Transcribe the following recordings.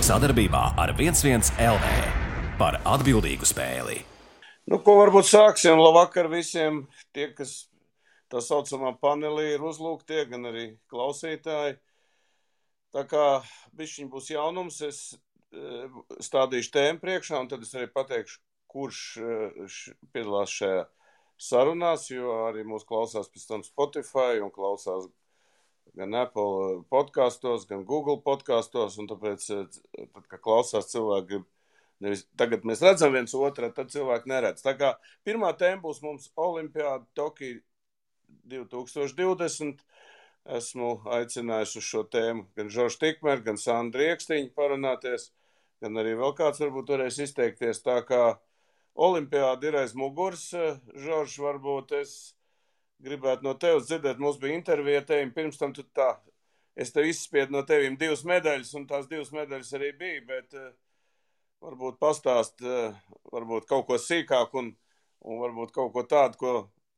Sadarbībā ar 11 LV par atbildīgu spēli. Nu, ko varbūt sāksim? Labvakar visiem tie, kas tā saucamā panelī ir uzlūgtie, gan arī klausītāji. Tā kā bišķiņ būs jaunums, es stādīšu tēmu priekšā, un tad es arī pateikšu, kurš piedalās šajā sarunās, jo arī mūs klausās pēc tam Spotify un klausās gan Apple podkastos, gan Google podkastos, un tāpēc, tad, kad klausās cilvēki, nevis tagad mēs redzam viens otru, tad cilvēki neredz. Tā kā pirmā tēma būs mums Olimpiāda Tokija 2020. Esmu aicinājusi uz šo tēmu gan Žoržu Tikmeru, gan Sandru Riekstiņu parunāties, gan arī vēl kāds varbūt varēs izteikties. Tā kā Olimpiāda ir aiz muguras, Žorž, varbūt es gribētu no tevis dzirdēt, mums bija intervija tevim, pirms tam tu tā, es tev izspiedu no tevim 2 medaļas, un tās 2 medaļas arī bija, bet varbūt pastāst, varbūt kaut ko sīkāk un varbūt kaut ko tādu, ko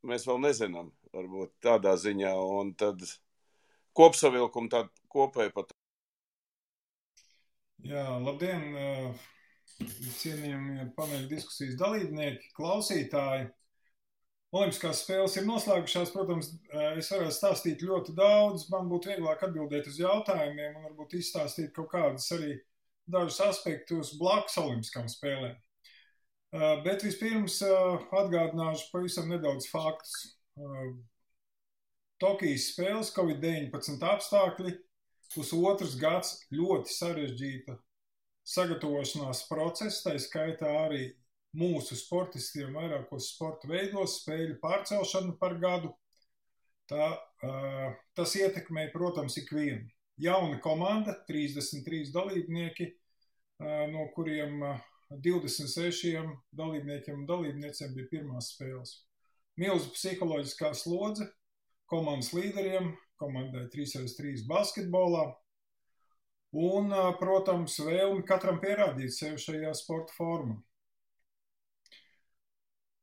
mēs vēl nezinām, varbūt tādā ziņā, un tad kopsavilkumu tādu kopēju pat. Jā, labdien, cienījamie paneļa diskusijas dalībnieki, klausītāji. Olimpiskās spēles ir noslēgušās, protams, es varētu stāstīt ļoti daudz, man būtu vieglāk atbildēt uz jautājumiem un varbūt izstāstīt kaut kādus arī dažus aspektus blakus olimpiskām spēlēm. Bet vispirms atgādināšu pavisam nedaudz faktus. Tokijas spēles, Covid-19 apstākļi, pusotrs gads ļoti sarežģīta sagatavošanās process, tā skaitā arī mūsu sportistiem vairākos sporta veidos, spēļu pārcelšanu par gadu. Tas ietekmē, protams, ikvienu. Jauna komanda, 33 dalībnieki, no kuriem 26 dalībniekiem un dalībniecēm bija pirmās spēles. Milzu psiholoģiskā slodze komandas līderiem, komandai 3x3 basketbolā un, protams, vēlmi katram pierādīt sevi šajā sporta formā.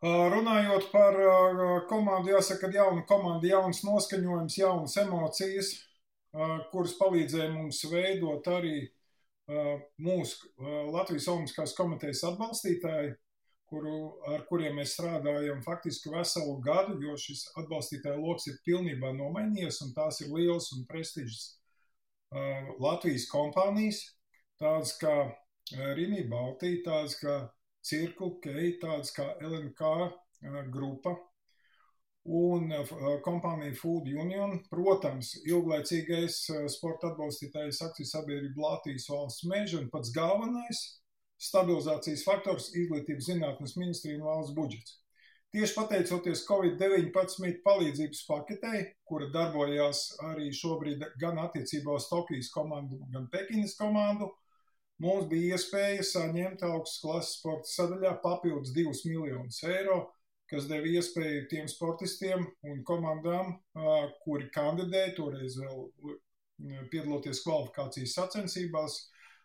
Runājot par komandu, jāsaka, ka jauna komanda, jauns noskaņojums, jaunas emocijas, kuras palīdzēja mums veidot arī mūsu Latvijas Olimpiskās komitejas atbalstītāji, ar kuriem mēs strādājam faktiski veselu gadu, jo šis atbalstītāju loks ir pilnībā nomainījies, un tās ir lielas un prestižas Latvijas kompānijas, tādas kā Rimi Baltī, tādas kā Circle K, tādas kā LNK grupa un kompānija Food Union. Protams, ilglaicīgais sporta atbalstītājs akciju sabiedrība Latvijas valsts meža un pats galvenais stabilizācijas faktors izglītības zinātnes ministrija un valsts budžets. Tieši pateicoties Covid-19 palīdzības paketei, kura darbojās arī šobrīd gan attiecībā uz Tokijas komandu, gan Pekinas komandu, mums bija iespēja saņemt augstas klases sporta sadaļā papildus 2 miljonus eiro, kas deva iespēju tiem sportistiem un komandām, kuri kandidēja, toreiz vēl piedaloties kvalifikācijas sacensībās,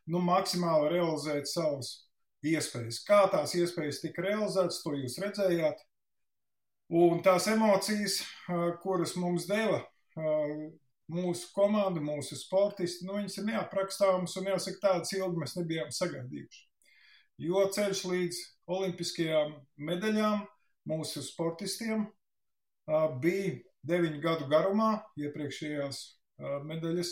maksimāli realizēt savas iespējas. Kā tās iespējas tika realizētas, to jūs redzējāt. Un tās emocijas, kuras mums deva mūsu komanda, mūsu sportisti, viņas ir neaprakstāmas un jāsaka, tādas ilgi mēs nebijām sagaidījuši. Jo ceļš līdz olimpiskajām medaļām mūsu sportistiem bija 9 gadu garumā. Iepriekšējās medaļas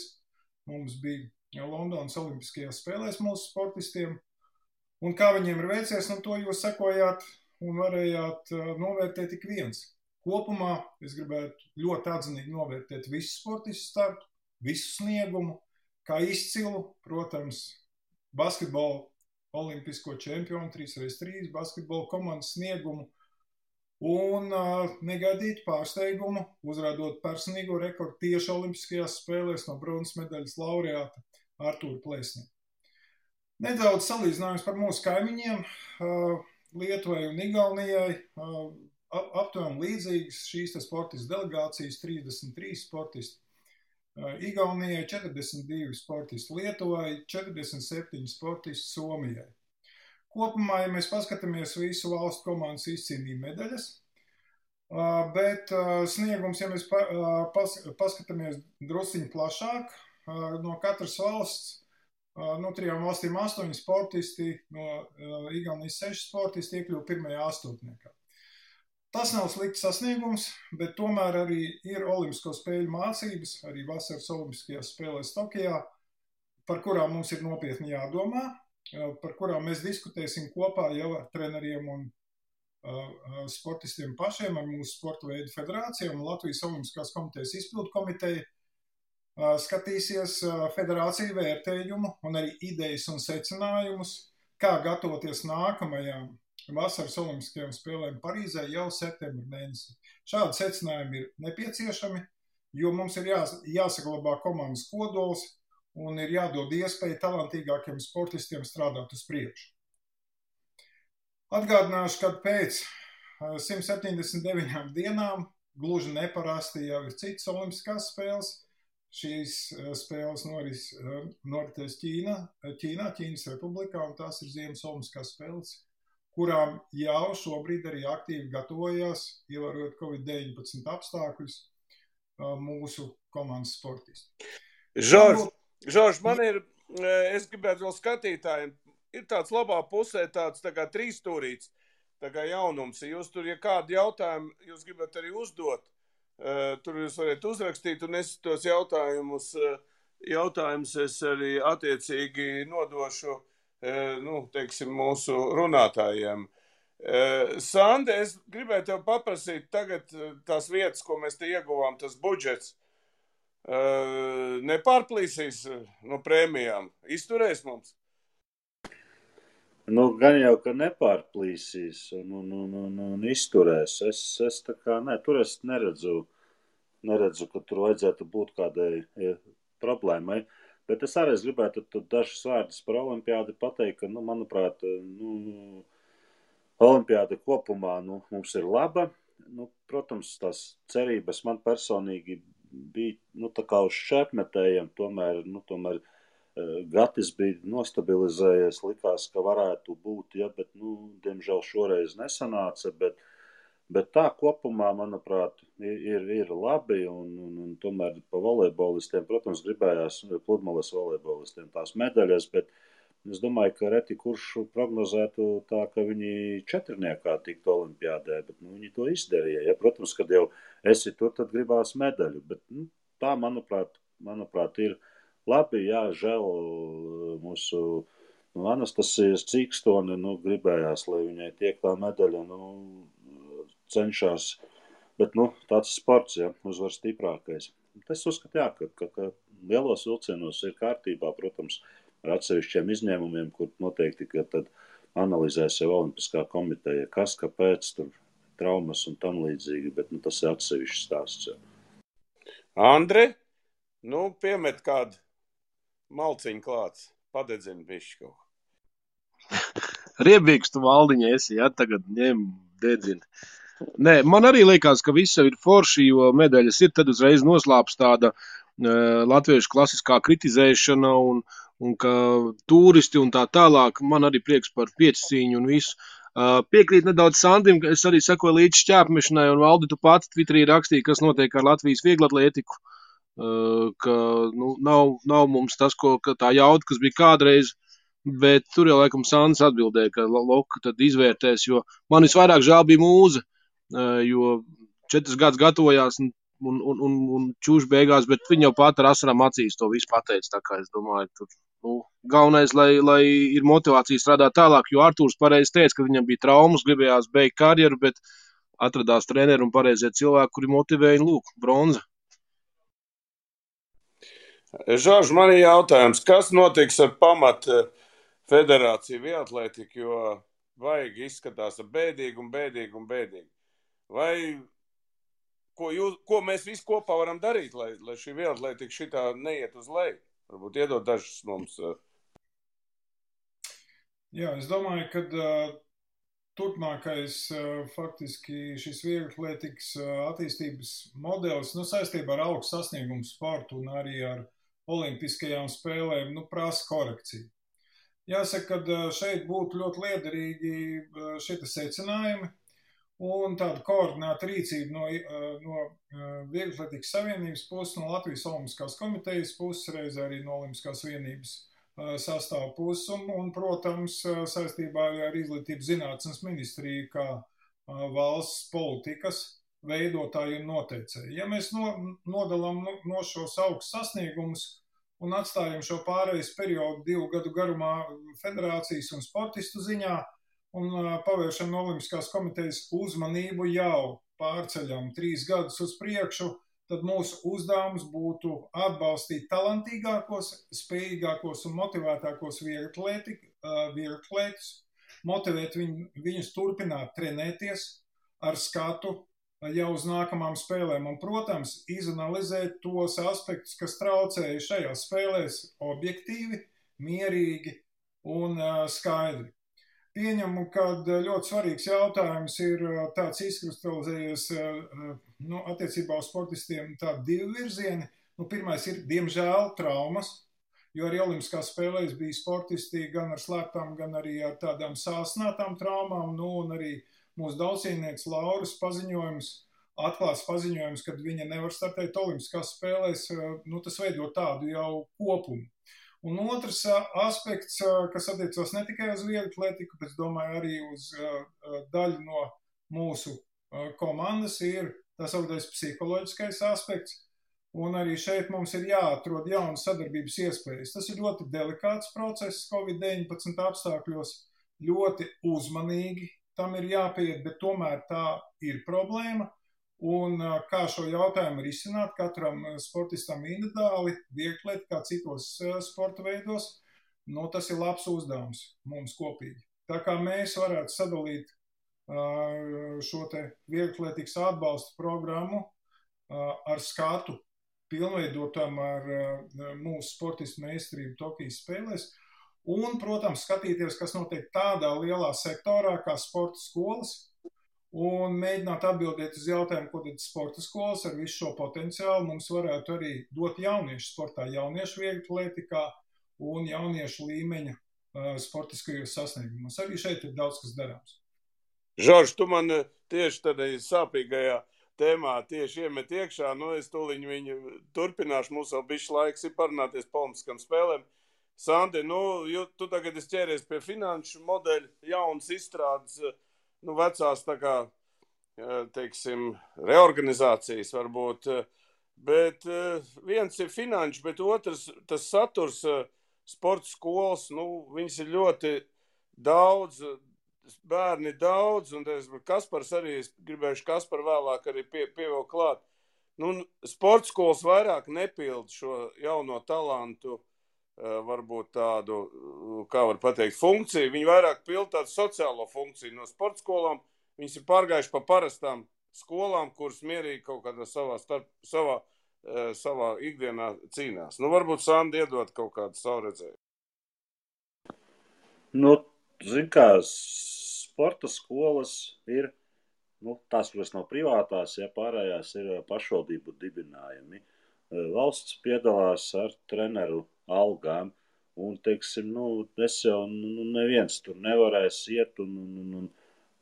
mums bija Londonas olimpiskajās spēlēs mūsu sportistiem. Un kā viņiem ir veicies, to jūs sekojāt un varējāt novērtēt tik viens. Kopumā es gribētu ļoti atzinīgi novērtēt visu sportistu startu, visu sniegumu, kā izcilu, protams, basketbola olimpisko čempionu 3x3 basketbola komandas sniegumu un negaidītu pārsteigumu, uzrādot personīgo rekordu tieši olimpiskajās spēlēs no bronzas medaļas laureāta Artūra Plēsnieka. Nedaudz salīdzinājums par mūsu kaimiņiem, Lietuvai un Igaunijai. Aptuveni līdzīgas šīs sportistu delegācijas, 33 sportisti. Igaunijai 42 sportisti, Lietuvai 47 sportisti, Somijai. Kopumā, ja mēs paskatāmies, visu valstu komandas izcīnīja medaļas, bet sniegums, ja mēs paskatāmies drusciņi plašāk, no katras valsts no 3 valstīm 8 sportisti, no Igaunijas 6 sportisti iekļuva pirmajā astotniekā. Tas nav slikts sasniegums, bet tomēr arī ir olimpisko spēļu mācības, arī vasaras olimpiskajās spēlēs Tokijā, par kurām mums ir nopietni jādomā, par kurām mēs diskutēsim kopā jau ar treneriem un sportistiem pašiem, ar mūsu sporta veidu federācijām un Latvijas Olimpiskās komitejas izpildu komiteju. Skatīsies federāciju vērtējumu un arī idejas un secinājumus, kā gatavoties nākamajām vasaras olimpiskajām spēlēm Parīzē jau septembra mēnesī. Šādi secinājumi ir nepieciešami, jo mums ir jāsaglabā komandas kodols un ir jādod iespēja talantīgākiem sportistiem strādāt uz priekšu. Atgādināšu, ka pēc 179 dienām gluži neparasti jau ir citas olimpiskās spēles. Šīs spēles noritēs Ķīnas republikā, un tās ir Ziemas olimpiskās spēles, kurām jau šobrīd arī aktīvi gatavojās, ievērojot Covid-19 apstākļus, mūsu komandas sportisti. Žorž, es gribētu vēl skatītājiem, ir tāds labā pusē tāds tā kā trīsstūrīts, tā kā jaunums. Jūs tur, ja kādu jautājumu jūs gribat arī uzdot, tur jūs varat uzrakstīt, un es tos jautājumus es arī attiecīgi nodošu, teiksim, mūsu runātājiem. Sande, es gribēju tev paprasīt tagad tās vietas, ko mēs te ieguvām, tas budžets, nepārplīsīs no prēmijām, izturēs mums? Gan jau, ka nepārplīsīs un izturēs. Es tā kā, tur es neredzu, ka tur vajadzētu būt kādai problēmai. Bet es arī gribētu dažus vārdus par olimpiādi pateikt, ka, manuprāt, olimpiāda kopumā mums ir laba. Protams, tās cerības man personīgi bija tā kā uz šķērpmetējiem, tomēr Gatis bija nostabilizējies, likās, ka varētu būt, bet, diemžēl šoreiz nesanāca, bet tā kopumā, manuprāt, ir labi, un tomēr pa volejbolistiem, protams, gribējās pludmales volejbolistiem tās medaļas, bet es domāju, ka reti kurš prognozētu tā, ka viņi četrniekā tiktu olimpiādē, bet viņi to izdarīja. Ja? Protams, kad jau esi tur, tad gribās medaļu, bet tā, manuprāt, ir labi, jā, žēl mūsu Anastasijas Cīkstoni, gribējās, lai viņai tiek tā medaļa, cenšas, bet, tāds sports, jā, uzvar stiprākais. Es uzskatu, jā, ka lielos vilcienos ir kārtībā, protams, ar atsevišķiem izņēmumiem, kur noteikti, ka tad analizēs jau Olimpiskā komiteja, kas, kāpēc, tur traumas un tam līdzīgi, bet, tas ir atsevišķs stāsts, jā. Andre, piemet kādu malciņu klāts, padedzina bišķi kaut. Riebīgs tu valdiņa esi, jā, tagad ņem dedzina. Nē, man arī liekas, ka viss ir forši, jo medaļas ir, tad uzreiz noslāps tāda latviešu klasiskā kritizēšana un ka turisti un tā tālāk. Man arī prieks par piecīņu un visu. Piekrīt nedaudz Sandim, ka es arī sekoju līdz šķērpmešanai, un Valdi, tu pats Twitterī rakstīji, kas notiek ar Latvijas vieglatlētiku, ka nav mums tas, ka tā jauda, kas bija kādreiz, bet tur jau laikam Sandis atbildēja, ka Loka tad izvērtēs, jo man visvairāk žēl bija Mūze, jo 4 gadus gatavojās un čūš beigās, bet viņa jau pat ar asarām acīs to visu pateica, tā kā es domāju, tur, galvenais, lai ir motivācija strādāt tālāk, jo Artūrs pareizi teica, ka viņam bija traumas, gribējās beigt karjeru, bet atradās treneri un pareizie cilvēki, kuri motivēja, bronza. Žorž, man ir jautājums, kas notiks ar pamat federāciju vieglatlētiku, jo vajag izskatās bēdīgi. Vai ko mēs visi kopā varam darīt, lai šī vieglatlētika šitā neiet uz leju? Varbūt iedot dažus mums. Jā, es domāju, ka turpmākais faktiski šis vieglatlētikas attīstības modelis saistībā ar augstu sasniegumu sportu un arī ar olimpiskajām spēlēm prasa korekciju. Jāsaka, ka šeit būtu ļoti liederīgi šie secinājumi un tāda koordinēta rīcība no Vieglatlētikas savienības puses, no Latvijas Olimpiskās komitejas puses, reiz arī no Olimpiskās vienības sastāv puses un, protams, saistībā ar izglītības zinātnes ministriju kā valsts politikas veidotāji un noteicēji. Ja mēs nodalām no šos augstus sasniegumus un atstājam šo pārejas periodu 2 gadu garumā federācijas un sportistu ziņā un pavēršam no Olimpiskās komitejas uzmanību jau pārceļam 3 gadus uz priekšu, tad mūsu uzdevums būtu atbalstīt talantīgākos, spējīgākos un motivētākos vieglatlētus, motivēt viņus turpināt trenēties ar skatu jau uz nākamām spēlēm un, protams, izanalizēt tos aspektus, kas traucēja šajās spēlēs objektīvi, mierīgi un skaidri. Pieņemu, ka ļoti svarīgs jautājums ir tāds izkristalizējies attiecībā uz sportistiem tādi 2 virzieni. Pirmais ir, diemžēl, traumas, jo arī Olimpiskās spēlēs bija sportisti gan ar slēptām, gan arī ar tādām sāsnātām traumām, un arī mūsu daudzcīnnieks Lauras atklāts paziņojums, kad viņa nevar startēt Olimpiskās spēlēs, tas veido tādu jau kopumu. Un otrs aspekts, kas attiecās ne tikai uz vieglatlētiku, bet, domāju, arī uz daļu no mūsu komandas, ir tā sauktais psiholoģiskais aspekts. Un arī šeit mums ir jāatrod jaunas sadarbības iespējas. Tas ir ļoti delikāts process Covid-19 apstākļos, ļoti uzmanīgi tam ir jāpieiet, bet tomēr tā ir problēma. Un kā šo jautājumu risināt katram sportistam individuāli, vieglatlētā, kā citos sporta veidos, tas ir labs uzdevums mums kopīgi. Tā kā mēs varētu sadalīt šo te vieglatlētikas atbalsta programmu ar skatu, pilnveidotam ar mūsu sportistu meistarību Tokijas spēlēs, un, protams, skatīties, kas notiek tādā lielā sektorā kā sporta skolas, un mēģināt atbildēt uz jautājumu, ko tad sporta skolas ar visu šo potenciālu mums varētu arī dot jauniešu sportā, jauniešu vieglatlētikā un jauniešu līmeņa sportiskajos sasniegumos. Arī šeit ir daudz kas darāms. Žorž, tu man tieši tādā sāpīgajā tēmā tieši iemet iekšā, es tūliņ viņu turpināšu, mums vēl bišķi laiks ir parunāties pa Olimpiskām spēlēm. Sandi, tu tagad esi ķēries pie finanšu modeļu, jaunas izstrādes, vecās tā kā, teiksim, reorganizācijas varbūt, bet viens ir finanšu, bet otrs, tas saturs sporta skolas, viņas ir ļoti daudz, bērni daudz, un Kaspars arī, es gribējuši Kasparu vēlāk arī pievēl klāt. Sporta skolas vairāk nepild šo jauno talantu, varbūt tādu, kā var pateikt, funkciju. Viņi vairāk pild tādu sociālo funkciju no sporta skolām. Viņas ir pārgājuši pa parastām skolām, kuras mierīgi kaut kādā savā ikdienā cīnās. Varbūt Sandi iedot kaut kādu savu redzējumu. Zin kā, sporta skolas ir, tās, kuras nav privātās, pārējās ir pašvaldību dibinājumi. Valsts piedalās ar treneru algām, un, teiksim, es jau, neviens tur nevarēs iet un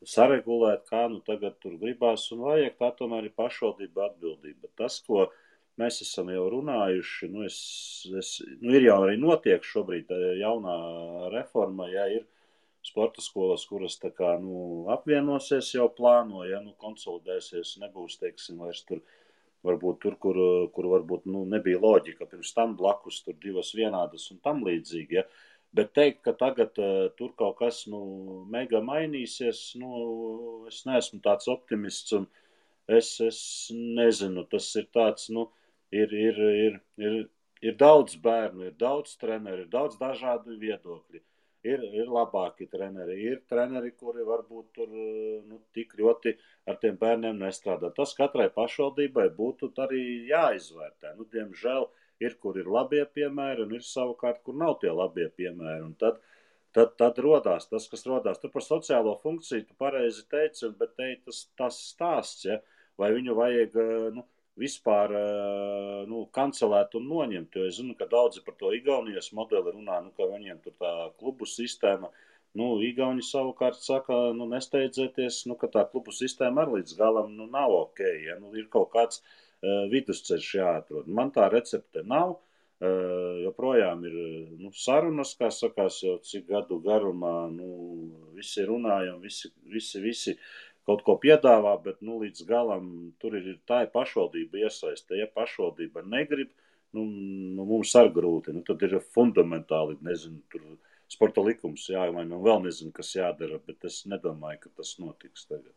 saregulēt, kā tagad tur gribās, un vajag tā tomēr ir pašvaldība atbildība. Tas, ko mēs esam jau runājuši, ir jau arī notiek šobrīd jaunā reforma, ir sporta skolas, kuras tā kā, apvienosies jau plāno, konsolidēsies, nebūs, teiksim, vairs tur, varbūt tur, kur varbūt nebija loģika, pirms tam blakus tur 2 vienādas un tam līdzīgi, bet teikt, ka tagad tur kaut kas, mega mainīsies, es neesmu tāds optimists, un es nezinu, tas ir tāds, ir daudz bērnu, ir daudz treneri, ir daudz dažādu viedokļi. Ir labāki treneri, ir treneri, kuri varbūt tur tik ļoti ar tiem bērniem nestrādā. Tas katrai pašvaldībai būtu arī jāizvērtē. Diemžēl ir, kur ir labie piemēri, un ir savukārt, kur nav tie labie piemēri. Un tad rodās tas, kas rodās. Tur par sociālo funkciju tu pareizi teici, bet tas stāsts, vai viņu vajag vispār kancelēt un noņemt, jo es zinu, ka daudzi par to Igaunijas modeli runā, ka viņiem tur tā klubu sistēma, Igauni savukārt saka, nesteidzieties, ka tā klubu sistēma arī līdz galam nav ok, ir kaut kāds vidusceļš jāatrod. Man tā recepte nav, joprojām ir sarunas, kā sakās, jau cik gadu garumā, visi runājam, visi kaut ko piedāvā, bet līdz galam tur tā ir pašvaldība iesaiste. Ja pašvaldība negrib, mums ar grūti. Tad ir fundamentāli, nezinu, tur sporta likums jāmaina, vēl nezinu, kas jādara, bet es nedomāju, ka tas notiks tagad.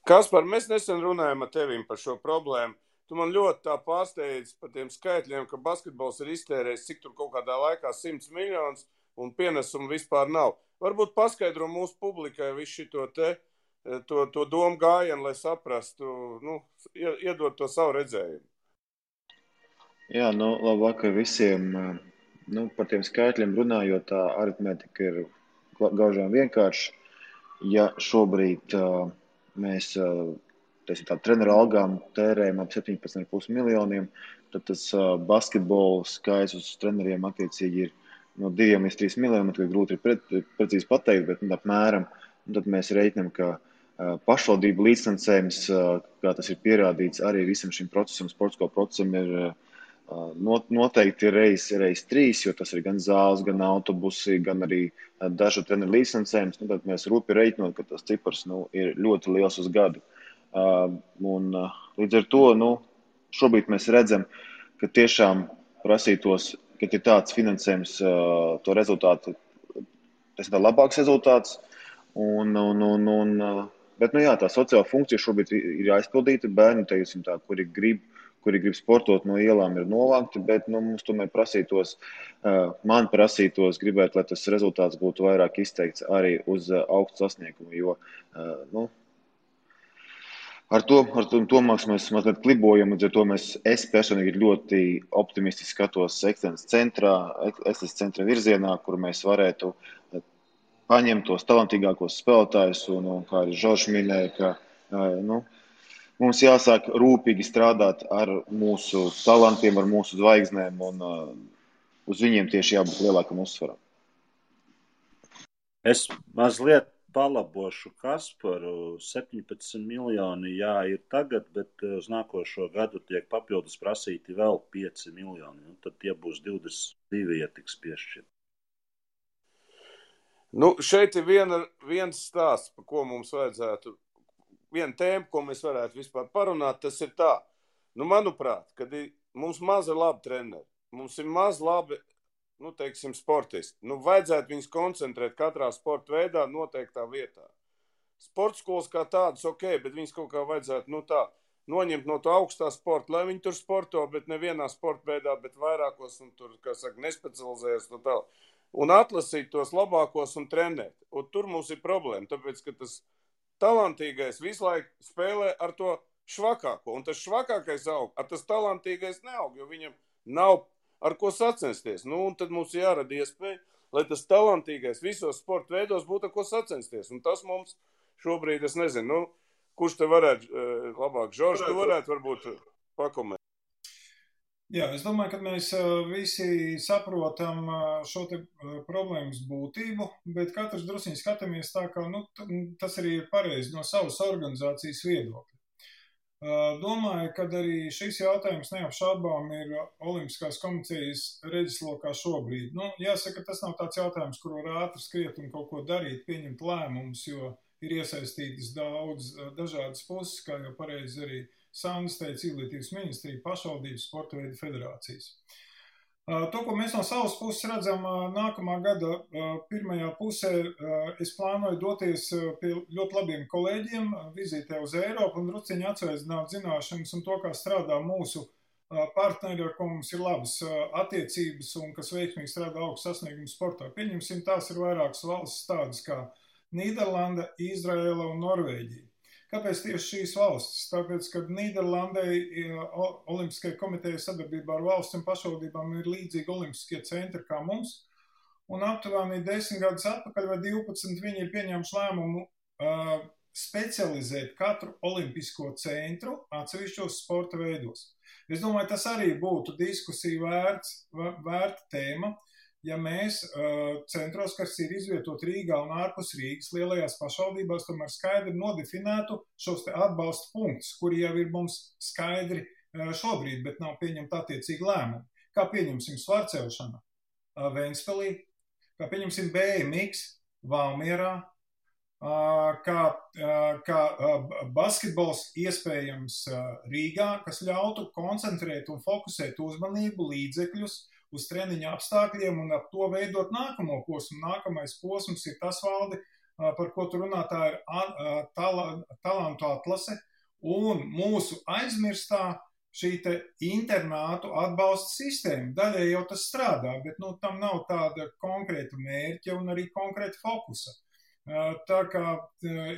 Kaspar, mēs nesen runājam ar tevim par šo problēmu. Tu man ļoti tā pārsteidz par tiem skaitļiem, ka basketbols ir iztērējis, cik tur kaut kādā laikā 100 miljonus un pienesumu vispār nav. Varbūt paskaidro mūsu publikai visu šito to domu gājienu, lai saprastu, iedot to savu redzējumu. Jā, labvakar visiem. Par tiem skaitļiem runājot, tā aritmētika ir gaužām vienkārši. Ja šobrīd mēs treneru algām tērējam ap 17,5 miljoniem, tad tas basketbola skaits uz treneriem attiecīgi ir no 2 līdz 3 miljoniem, tad grūti ir precīzi pateikt, bet apmēram. Tad mēs reiķinām, ka pašvaldību līdzfinansējums, kā tas ir pierādīts, arī visam šim procesam, sportsko procesam ir noteikti reiz 3, jo tas ir gan zāles, gan autobusi, gan arī dažu treneru līdzfinansējums. Tad mēs rūpi reiķinot, ka tas cipars ir ļoti liels uz gadu. Līdz ar to šobrīd mēs redzam, ka tiešām prasītos, kad ir tāds finansējums, to rezultātu, tas ir labāks rezultāts. Bet tā sociāla funkcija šobrīd ir aizpildīta. Bērni, teiksim tā, kuri grib sportot no ielām, ir novākti, bet mums tomēr man prasītos gribēt, lai tas rezultāts būtu vairāk izteikts arī uz augstu sasniegumu, jo ar to mēs mazliet klibojam, līdz ar to es personīgi ļoti optimistiski skatos ekscelences centra virzienā, kur mēs varētu paņemt tos talantīgākos spēlētājus, un kā arī Žoržs minēja, ka mums jāsāk rūpīgi strādāt ar mūsu talantiem, ar mūsu zvaigznēm, un uz viņiem tieši jābūt lielākam uzsvaram. Es mazliet palabošu Kasparu. 17 miljoni, ir tagad, bet uz nākošo gadu tiek papildus prasīti vēl 5 miljoni. Tad tie būs 22, ja tiks piešķirt. Šeit ir viens stāsts, par ko mums vajadzētu, viena tēma, ko mēs varētu vispār parunāt, tas ir tā. Manuprāt, kad mums maz ir labi treneri, mums ir maz labi, teiksim, sportisti. Vajadzētu viņus koncentrēt katrā sporta veidā noteiktā vietā. Sporta skolas kā tādas, bet viņus kaut kā vajadzētu, noņemt no to augstā sporta, lai viņi tur sporto, bet nevienā sporta veidā, bet vairākos, un tur, kā saka, nespecializējas no tā. Un atlasīt tos labākos un trenēt. Un tur mums ir problēma, tāpēc, ka tas talantīgais visu laiku spēlē ar to švakāko, un tas švakākais aug, ar tas talantīgais neaug, jo viņam nav ar ko sacensties. Un tad mums jārada iespēja, lai tas talantīgais visos sporta veidos būtu ar ko sacensties. Un tas mums šobrīd, es nezinu, kurš te varētu labāk, Žorž, tu varētu varbūt pakomentēt. Jā, es domāju, ka mēs visi saprotam šo te problēmas būtību, bet katrs drusiņi skatāmies tā, ka tas arī ir pareizi no savas organizācijas viedokļa. Domāju, ka arī šis jautājums neapšaubām ir Olimpiskās komitejas redzeslokā šobrīd. Jāsaka, tas nav tāds jautājums, kur var ātri skriet un kaut ko darīt, pieņemt lēmumus, jo ir iesaistītas daudz dažādas puses, kā jau pareizi arī Sandis teica, Izglītības ministrija, pašvaldības, sporta veidu federācijas. To, ko mēs no savas puses redzam nākamā gada pirmajā pusē, es plānoju doties pie ļoti labiem kolēģiem, vizītē uz Eiropu un drusciņi atsveicināt zināšanas un to, kā strādā mūsu partneri, ar ko mums ir labas attiecības un kas veiksmīgi strādā augstu sasniegumu sportā. Pieņemsim, tās ir vairākas valstis tādas kā Nīderlanda, Izraela un Norvēģija. Kāpēc tieši šīs valstis? Tāpēc, ka Nīderlandei Olimpiskajai komitejai sadarbībā ar valsts un pašvaldībām ir līdzīgi olimpiskie centri kā mums, un aptuveni 10 gadus atpakaļ vai 12 viņi ir pieņēmuši lēmumu specializēt katru olimpisko centru atsevišķos sporta veidos. Es domāju, tas arī būtu diskusiju vērta tēma, ja mēs centros, kas ir izvietot Rīgā un ārpus Rīgas lielajās pašvaldībās, tomēr skaidri nodefinētu šos te atbalsta punktus, kuri jau ir mums skaidri šobrīd, bet nav pieņemta attiecīgi lēmumi. Kā pieņemsim svarcelšanu Ventspilī, kā pieņemsim BMX Valmierā, kā basketbols iespējams Rīgā, kas ļautu koncentrēt un fokusēt uzmanību līdzekļus uz treniņa apstākļiem un ap to veidot nākamo posmu. Nākamais posms ir tas, Valdi, par ko tu runā, tā ir talantu atlase un mūsu aizmirstā šī te internātu atbalsta sistēma. Daļai jau tas strādā, bet tam nav tāda konkrēta mērķa un arī konkrēta fokusa. Tā kā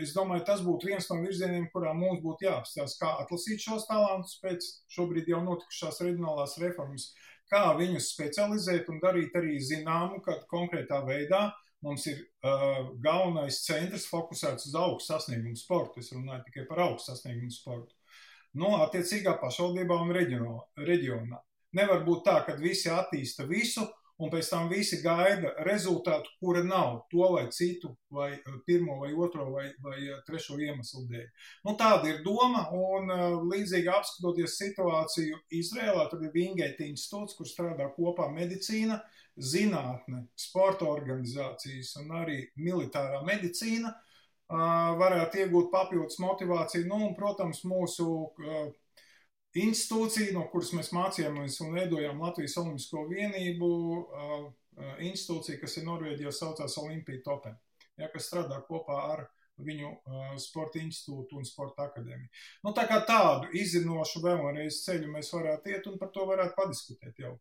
es domāju, tas būtu viens no virzieniem, kurā mums būtu jāapstāsta, kā atlasīt šos talantus pēc šobrīd jau notikušās reģionālās reformas, kā viņus specializēt un darīt arī zināmu, kad konkrētā veidā mums ir galvenais centrs fokusēts uz augstu sasniegumu sportu. Es runāju tikai par augstu sasniegumu sportu. Attiecīgā pašvaldībā un reģionā. Nevar būt tā, ka visi attīsta visu, un pēc tam visi gaida rezultātu, kura nav to vai citu, vai pirmo, vai otro, vai trešo iemeslu dēļ. Tāda ir doma, un līdzīgi apskatoties situāciju Izrēlā, tur ir Wingate institūts, kur strādā kopā medicīna, zinātne, sporta organizācijas un arī militārā medicīna, varētu iegūt papildus motivāciju, un, protams, mūsu institūcija, no kuras mēs mācījāmies un veidojām Latvijas Olimpisko vienību, institūcija, kas ir Norvēģijā, saucās Olympija Topen, kas strādā kopā ar viņu sporta institūtu un sporta akadēmiju. Tā kā tādu izzinošu vēlreiz ceļu mēs varētu iet un par to varētu padiskutēt jau.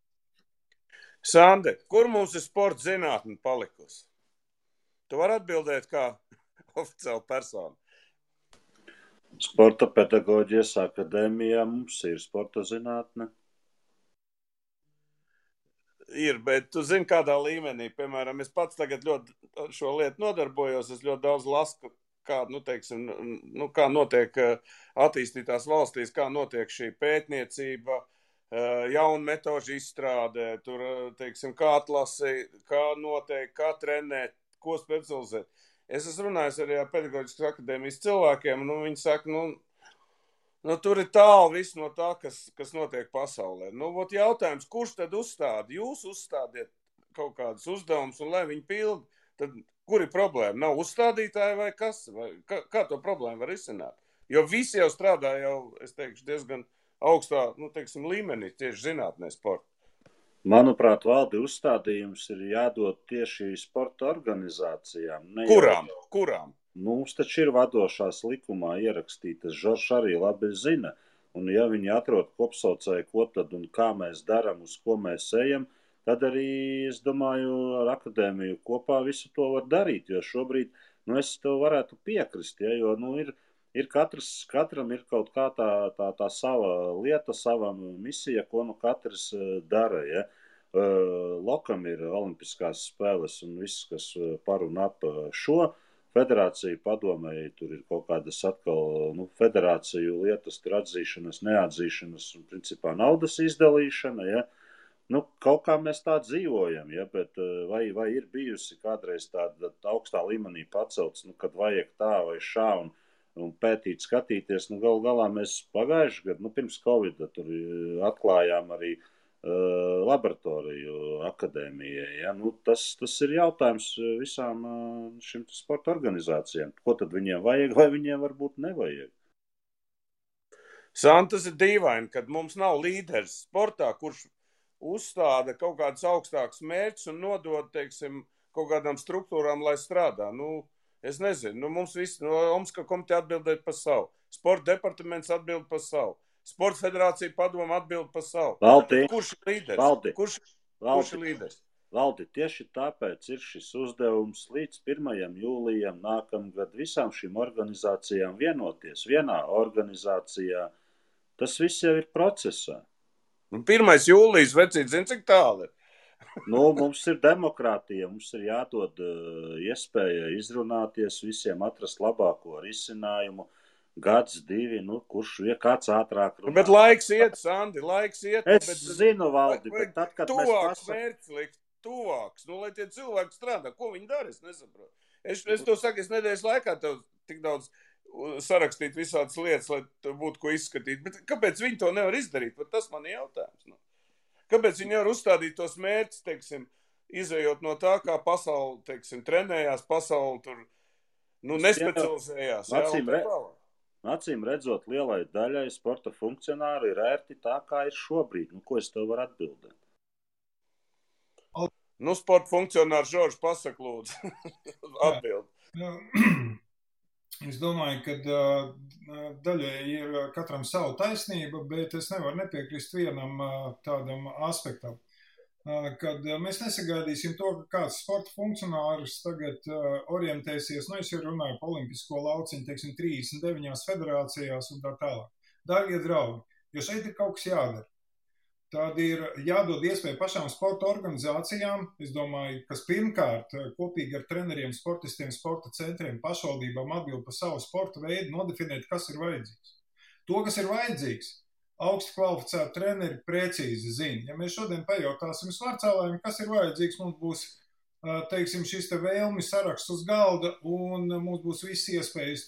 Sande, kur mums ir sporta zinātne palikusi? Tu vari atbildēt kā oficiāla persona. Sporta pedagoģijas akadēmijā mums ir sporta zinātne. Ir, bet tu zini, kādā līmenī, piemēram, es pats tagad ļoti šo lietu nodarbojos, es ļoti daudz lasu, kā notiek attīstītās valstīs, kā notiek šī pētniecība, jaunu metožu izstrādē, tur, kā atlasi, kā notiek, kā trenēt, ko specializēt. Es esmu runājis arī ar pedagoģiskas akadēmijas cilvēkiem, un viņi saka, tur ir tālu viss no tā, kas notiek pasaulē. Jautājums, kurš tad uzstāda? Jūs uzstādiet kaut kādus uzdevumus, un lai viņi pildi, tad kur ir problēma? Nav uzstādītāji vai kas? Vai kā to problēmu var izsināt? Jo visi jau strādā es teikšu, diezgan augstā, līmenī, tieši zinātnē sporta. Manuprāt, Valdi, uzstādījums ir jādod tieši sporta organizācijām. Kurām? Mums taču ir vadošās likumā ierakstītas, Žoržs arī labi zina. Un ja viņi atrod kopsaucēju, ko tad un kā mēs daram, uz ko mēs ejam, tad arī, es domāju, ar akadēmiju kopā visu to var darīt. Jo šobrīd, es tev varētu piekrist, jo, katram ir kaut kā tā sava lieta, sava misija, ko katrs dara. Ja? Lokam ir olimpiskās spēles un viss, kas par un ap šo federāciju padomēji, tur ir kaut kādas atkal federāciju lietas, tur atzīšanas, neatzīšanas un principā naudas izdalīšana. Ja? Kaut kā mēs tā dzīvojam, ja? Bet vai ir bijusi kādreiz tāda augstā līmenī pacelts, kad vajag tā vai šā un pētīt, skatīties, galu galā mēs pagājuši gadu, pirms Covida tur atklājām arī laboratoriju akadēmijai. Ja? Tas ir jautājums visām šim sporta organizācijām. Ko tad viņiem vajag, vai viņiem varbūt nevajag? Tas ir dīvaini, kad mums nav līderis sportā, kurš uzstāda kaut kādus augstākus mērķus un nodod, kaut kādām struktūrām, lai strādā. Es nezinu, mums visi Omska komiteja atbildēt par savu. Sporta departaments atbild par savu. Sporta federācija padoma atbild par savu. Valdi, kurš ir līderis? Kurš ir līderis? Valdi, tieši tāpēc ir šis uzdevums līdz 1. jūlijam nākamgad visām šīm organizācijām vienoties vienā organizācijā. Tas viss jau ir procesā. 1. jūlijas, vecīt, zin, cik tālu ir? Mums ir demokrātija, mums ir jādod iespēja izrunāties, visiem atrast labāko risinājumu, gads, 2, kurš kāds ātrāk runā. Bet laiks iet, Sandi, Zinu, Valdi, bet tad, kad tuvāks mērķis likt, tuvāks, lai tie cilvēki strādā, ko viņi dara, es nesaprotu. Es to saku, es nedēļas laikā tev tik daudz sarakstīt visādas lietas, lai būtu ko izskatīt. Bet kāpēc viņi to nevar izdarīt? Bet tas man ir jautājums. Nu. Kāpēc viņi nevar uzstādīt tos mērķus, teiksim, izējot no tā, kā pasauli, teiksim, trenējās, pasauli tur, nespecializējās. Acīm redzot, lielai daļai sporta funkcionāru ir ērti tā, kā ir šobrīd. Ko es tev varu atbildēt? Sporta funkcionārs Žorž pasaka, lūdzu, atbild. Es domāju, ka daļai ir katram savu taisnība, bet es nevaru nepiekrist vienam tādam aspektam. Kad mēs nesagaidīsim to, ka kāds sporta funkcionārs tagad orientēsies, es jau runāju par olimpisko lauciņu, teiksim, 39 federācijās un tā tālāk. Dārgie draugi, jo šeit ir kaut kas jādara. Tad ir jādod iespēju pašām sporta organizācijām, es domāju, kas pirmkārt kopīgi ar treneriem, sportistiem, sporta centriem, pašvaldībām atbild par savu sporta veidu, nodefinēt, kas ir vajadzīgs. To, kas ir vajadzīgs, augsti kvalificēti treneri precīzi zina. Ja mēs šodien pajautāsim svarcēlājiem, kas ir vajadzīgs, mums būs, teiksim, šis te vēlmi saraksts uz galda un mums būs visas iespējas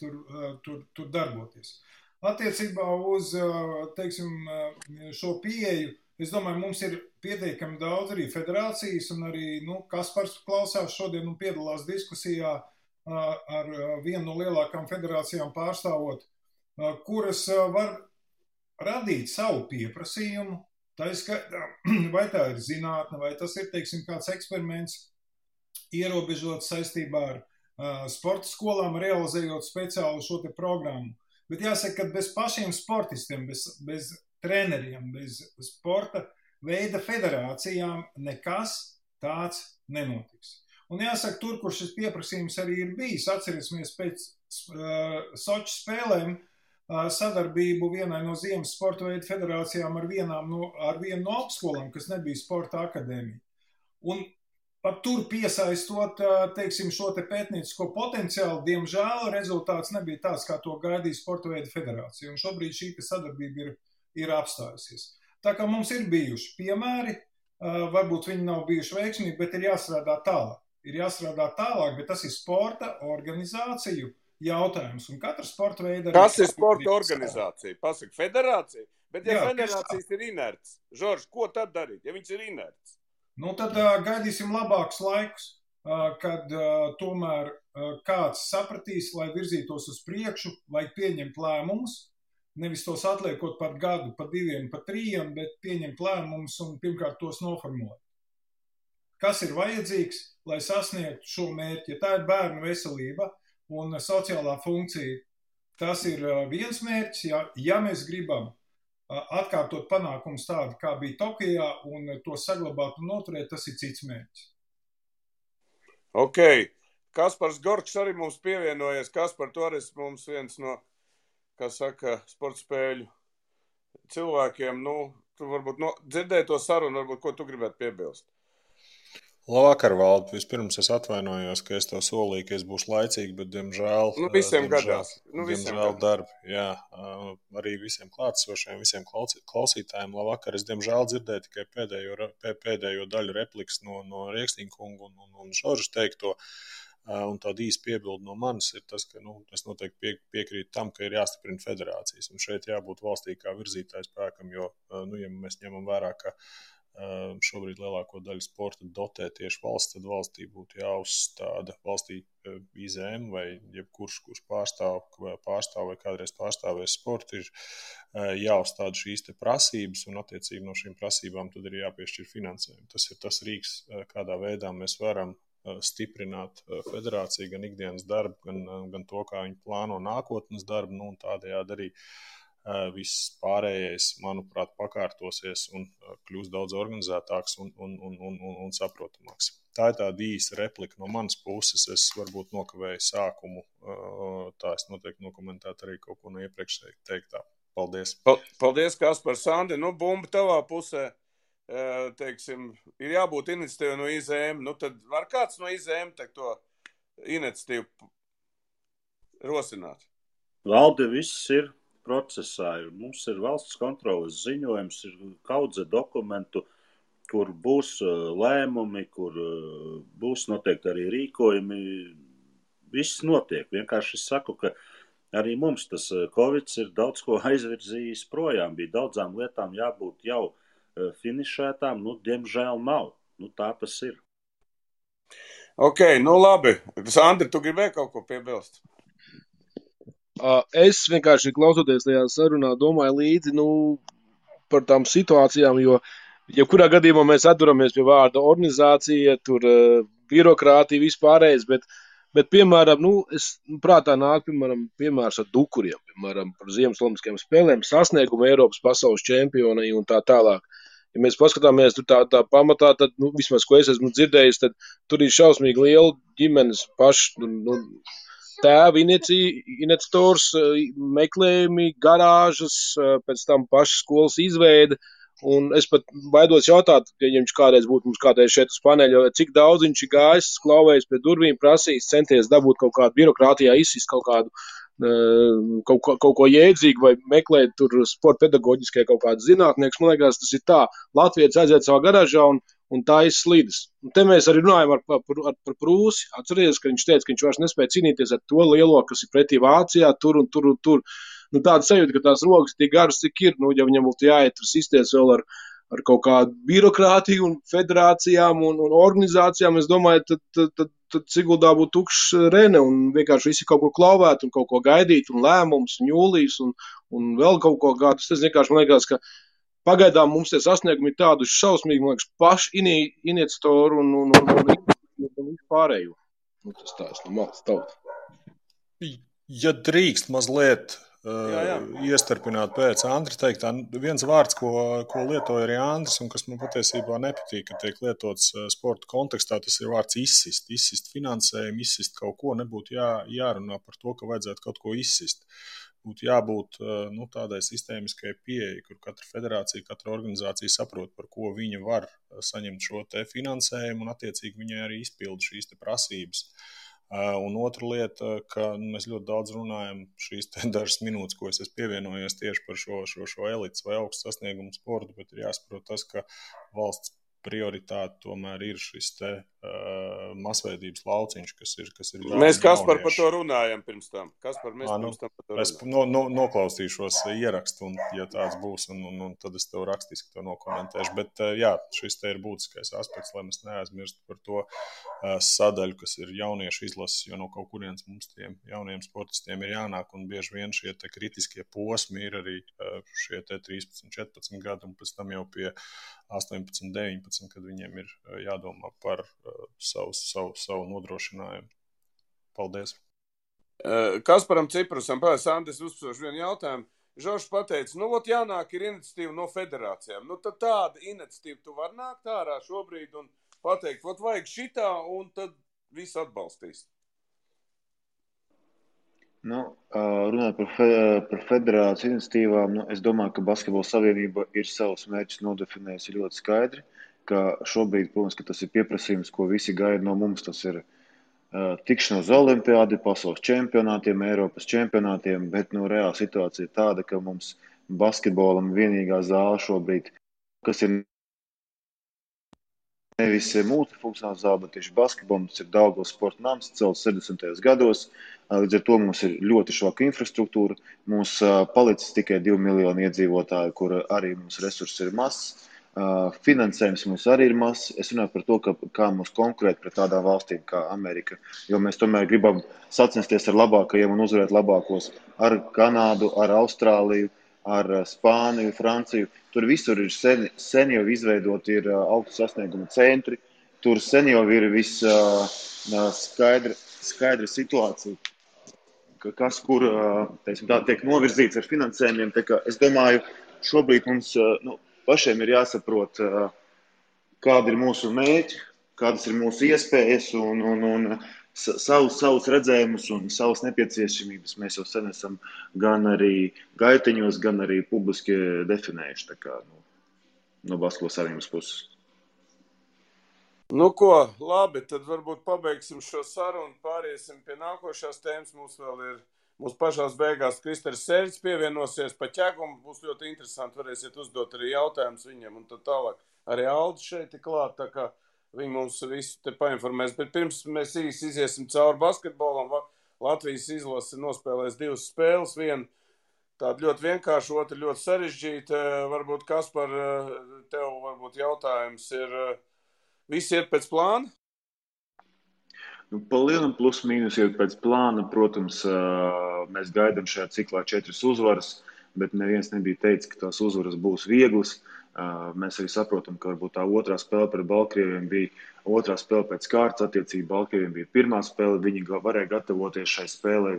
tur darboties. Attiecībā uz, teiksim, šo pieeju, es domāju, mums ir pietiekami daudz arī federācijas un arī, Kaspars klausās šodien un piedalās diskusijā ar vienu no lielākām federācijām pārstāvot, kuras var radīt savu pieprasījumu, vai tā ir zinātne, vai tas ir, teiksim, kāds eksperiments ierobežots saistībā ar sporta skolām, realizējot speciālu šo te programmu. Bet jāsaka, ka bez pašiem sportistiem, bez treneriem, bez sporta veida federācijām nekas tāds nenotiks. Un jāsaka, tur, kur šis pieprasījums arī ir bijis, atcerēsimies pēc Soču spēlēm sadarbību vienai no ziemas sporta veidu federācijām ar vienu no apskolām, kas nebija sporta akadēmija. Un pat tur piesaistot, teiksim, šo te pētniecisko potenciālu, diemžēl rezultāts nebija tāds, kā to gaidīja sporta veidu federācija. Un šobrīd šī sadarbība ir apstājusies. Tā kā mums ir bijuši piemēri, varbūt viņi nav bijuši veiksmīgi, bet ir jāstrādā tālāk. Bet tas ir sporta organizāciju jautājums. Un katra sporta veida... Kas ir sporta organizācija? Pasaka, federācija? Bet ja federācijas ir inerts, Žorž, ko tad darīt, ja viņas ir inerts? Tad gaidīsim labākus laikus, kad tomēr kāds sapratīs, lai virzītos uz priekšu, lai pieņemt lēmumus, nevis tos atliekot par gadu, par 2, par 3, bet pieņemt lēmumus un pirmkārt tos noformulēt. Kas ir vajadzīgs, lai sasniegtu šo mērķi? Ja tā ir bērnu veselība un sociālā funkcija, tas ir viens mērķis. Ja mēs gribam atkārtot panākumus tādu, kā bija Tokijā, un to saglabāt un noturēt, tas ir cits mērķis. Ok. Kaspars Gorčs arī mums pievienojies. Kaspar, tu arī mums viens no, kā saka, sporta spēļu cilvēkiem. Tu varbūt dzirdēji to sarunu, varbūt ko tu gribētu piebilst. Labvakar, Valdi. Vispirms es atvainojos, ka es tev solīju, ka es būšu laicīgi, bet diemžēl... visiem gadās. Diemžēl darbi, jā. Arī visiem klātesošiem, visiem klausītājiem labvakar. Es diemžēl dzirdēju tikai pēdējo daļu replikas no Rieksniņa kunga un Žorža teikto. Un tāda īsa piebilde no manis ir tas, ka es noteikti piekrītu tam, ka ir jāstiprina federācijas. Un šeit jābūt valstī kā virzītāju spēkam, jo, ja mēs ņemam vērā, ka šobrīd lielāko daļu sporta dotē tieši valsts, tad valstī būtu jāuzstāda valstī IZM vai jebkurš, kurš pārstāv vai kādreiz pārstāvēs sportu, ir jāuzstāda šīs te prasības un attiecīgi no šīm prasībām tad ir jāpiešķir finansējumu. Tas ir tas rīks, kādā veidā mēs varam stiprināt federāciju, gan ikdienas darbu, gan to, kā viņi plāno nākotnes darbu, un tādējādi arī viss pārējais, manuprāt, pakārtosies un kļūs daudz organizētāks un saprotamāks. Tā ir tāda īsa replika no manas puses. Es varbūt nokavēju sākumu, tā es noteikti nokomentētu arī kaut ko no iepriekš teiktā. Paldies. Paldies, Kaspar. Sandi, bumba tavā pusē. Teiksim, ir jābūt iniciatīva no IZM. Tad var kāds no IZM to iniciatīvu rosināt? Valde, viss ir procesā. Mums ir valsts kontroles ziņojums, ir kaudze dokumentu, kur būs lēmumi, kur būs noteikti arī rīkojumi. Viss notiek. Vienkārši es saku, ka arī mums tas Covids ir daudz ko aizvirzījis projām. Bija daudzām lietām jābūt jau finišētām, diemžēl nav. Tā tas ir. Ok, labi. Sandri, tu gribēji kaut ko piebilst? Es vienkārši klausoties tajā sarunā domāju līdzi, par tām situācijām, jo jebkurā gadījumā mēs atturamies pie vārda organizācija, tur birokrātija, vispārējais, bet piemēram, es prātā nāk, piemērs ar dukuriem, piemēram, par Ziemas olimpiskajām spēlēm, sasniegumu Eiropas pasaules čempionai un tā tālāk. Ja mēs paskatāmies tur tā pamatā, tad, vismaz, ko es esmu dzirdējis, tad tur ir šausmīgi liela ģimenes paši, tēvi iniciators, meklējumi, garāžas, pēc tam paša skolas izveide. Un es pat baidos jautāt, ja viņš kādreiz būtu mums kādreiz šeit uz paneļa, cik daudz viņš ir gājis, klauvējis pie durvīm, prasījis, centies dabūt kaut kādu birokrātijā, izsist kaut kādu kaut ko jēdzīgu vai meklēt tur sporta pedagoģiskai kaut kādas zinātnieks. Man liekas, tas ir tā. Latvijas aiziet savā garāžā un tā izslīdas. Un te mēs arī runājam par Prūsi. Atcerieties, ka viņš teica, ka viņš vairs nespēja cīnīties ar to lielo, kas ir pretī Vācijā, tur un tur un tur. Tāda sajūta, ka tās rokas tik garas, cik ir, ja viņam būtu jāiet tur sisties vēl ar kaut kādu birokrātiju un federācijām un organizācijām, es domāju, tad Siguldā būtu tukšs Rene un vienkārši visi kaut kur klauvēt un kaut ko gaidīt un lēmums un jūlijas un vēl kaut ko gādus. Tas vienkārši man liekas, ka pagaidām mums tie sasniegumi ir tādu šausmīgi, man liekas, paši iniciatoru un vispārējo. Tas tā es no malas tauta. Ja drīkst mazliet iestarpināt pēc Andra teiktā, viens vārds, ko lietoja arī Andris un kas man patiesībā nepatīk, ka tiek lietots sporta kontekstā, tas ir vārds izsist finansējumu, izsist kaut ko, nebūtu jārunā par to, ka vajadzētu kaut ko izsist. Būtu jābūt tādai sistēmiskai pieeja, kur katra federācija, katra organizācija saprot, par ko viņa var saņemt šo te finansējumu un attiecīgi viņai arī izpilda šīs te prasības. Un otra lieta, ka mēs ļoti daudz runājam šīs dažas minūtes, ko es esmu pievienojies tieši par šo elites vai augstu sasniegumu sportu, bet ir jāsaprot tas, ka valsts prioritāte tomēr ir šis te masveidības lauciņš, kas ir mēs Kaspar par to runājam pirms tam. Kaspar, mēs pirms tam par to runājam. Es noklausīšos ierakstu, un ja tāds būs, un tad es tev rakstiski to nokomentēšu. Bet jā, šis te ir būtiskais aspekts, lai mēs neaizmirstu par to sadaļu, kas ir jauniešu izlases, jo no kaut kurienes mums tiem jauniem sportistiem ir jānāk, un bieži vien šie te kritiskie posmi ir arī šie te 13, 14 gadi, un pēc tam jau pie 18, 19, kad viņiem ir jādomā par savu nodrošinājumu. Paldies. Kasparam Ciprusam, Sandis uzsprož vienu jautājumu. Žoržs pateica, jānāk ir iniciatīva no federācijām. Tad tāda iniciatīva tu var nākt ārā šobrīd un pateikt, vajag šitā, un tad viss atbalstīs. Runājot par federāciju iniciatīvām, es domāju, ka Basketbola savienība ir savus mērķus nodefinējusi ļoti skaidri, ka šobrīd, protams, ka tas ir pieprasījums, ko visi gaida no mums, tas ir tikšanos olimpiādi, pasaules čempionātiem, Eiropas čempionātiem, bet reāla situācija ir tāda, ka mums basketbolam vienīgā zāle šobrīd, kas ir nevis multifunkcionāls zāle, bet tieši basketbolam, tas ir Daugavas sporta nams, celts 70. gados. Līdz ar to mums ir ļoti švaka infrastruktūra. Mums palicis tikai 2 miljoni iedzīvotāji, kur arī mums resursi ir mazs. Finansējums mums arī ir mazs. Es runāju par to, kā mums konkurēt pret tādām valstīm kā Amerika, jo mēs tomēr gribam sacensties ar labākajiem un uzvarēt labākos ar Kanādu, ar Austrāliju, ar Spāniju, Franciju. Tur visur ir sen jau izveidoti ir augstu sasniegumu centri. Tur sen jau ir viss skaidra situācija, kas kur tiek novirzīts ar finansējumiem. Es domāju, šobrīd mums pašiem ir jāsaprot, kādi ir mūsu mērķi, kādas ir mūsu iespējas un savus redzējumus un savas nepieciešamības mēs jau sen esam gan arī gaiteņos, gan arī publiski definējuši no Basketbola savienības puses. Labi, tad varbūt pabeigsim šo sarunu, pāriesim pie nākošās tēmas. Mums vēl ir, mūsu pašās beigās Kristers Sērģis pievienosies pa ķegumu, būs ļoti interesanti, varēsiet uzdot arī jautājumus viņiem un tad tālāk. Arī Aldis šeit ir klāt, tā kā viņi mums visu te painformēs, bet pirms mēs īsi iziesim cauri basketbolam, Latvijas izlase nospēlēs 2 spēles, viena tāda ļoti vienkārša, otra ļoti sarežģīta. Varbūt, Kaspar, tev varbūt jautājums ir, visi iet pēc plāna? Nu, pa lielam plus mīnus iet pēc plāna. Protams, mēs gaidām šajā ciklā 4 uzvaras, bet neviens nebija teicis, ka tās uzvaras būs vieglas. Mēs arī saprotam, ka varbūt tā otrā spēle pret Baltkrieviem bija otrā spēle pēc kārtas. Attiecīgi Baltkrieviem bija pirmā spēle. Viņi varēja gatavoties šai spēlei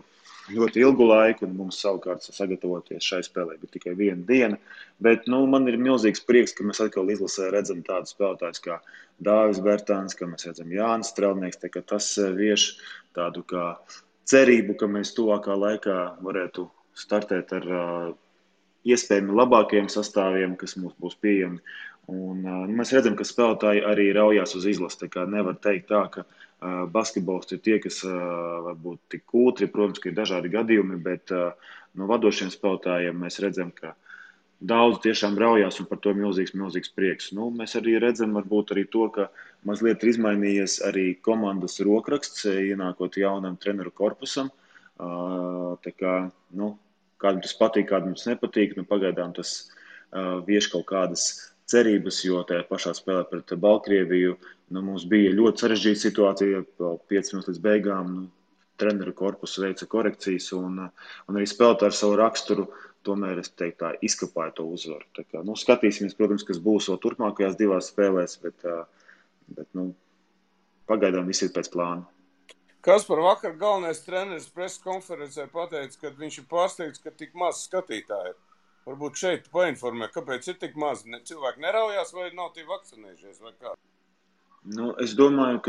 ļoti ilgu laiku, un mums savukārt sagatavoties šai spēlei bija tikai 1 diena. Bet man ir milzīgs prieks, ka mēs atkal izlasē redzam tādus spēlētājus kā Dāvis Bertāns, ka mēs redzam Jānis Strelnieks. Tas vieš tādu kā cerību, ka mēs tuvākā laikā varētu startēt ar iespējami labākajiem sastāviem, kas mums būs pieejami. Un, mēs redzam, ka spēlētāji arī raujās uz izlasi. Nevar teikt tā, ka basketbolisti ir tie, kas varbūt tik kūtri. Protams, ka ir dažādi gadījumi, bet no vadošiem spēlētājiem mēs redzam, ka daudz tiešām raujās, un par to milzīgs prieks. Mēs arī redzam varbūt arī to, ka mazliet ir izmainījies arī komandas rokraksts, ienākot jaunam treneru korpusam. Kādam tas patīk, kādam tas nepatīk. Pagaidām tas vieš kaut kādas cerības, jo tajā pašā spēlē pret Baltkrieviju mums bija ļoti sarežģīta situācija, 5 minūtes līdz beigām treneru korpusu veica korekcijas, un arī spēlētāji ar savu raksturu tomēr, es teiktu, tā izkapāja to uzvaru. Skatīsimies, protams, kas būs vēl turpmākajās 2 spēlēs, bet pagaidām viss ir pēc plāna. Kaspar, vakar galvenais treneris preses konferencē pateica, ka viņš ir pārsteigts, ka tik maz skatītāji ir. Varbūt šeit painformē, kāpēc ir tik maz. Cilvēki neraujās vai nav tie vakcinējušies vai kā? Es domāju,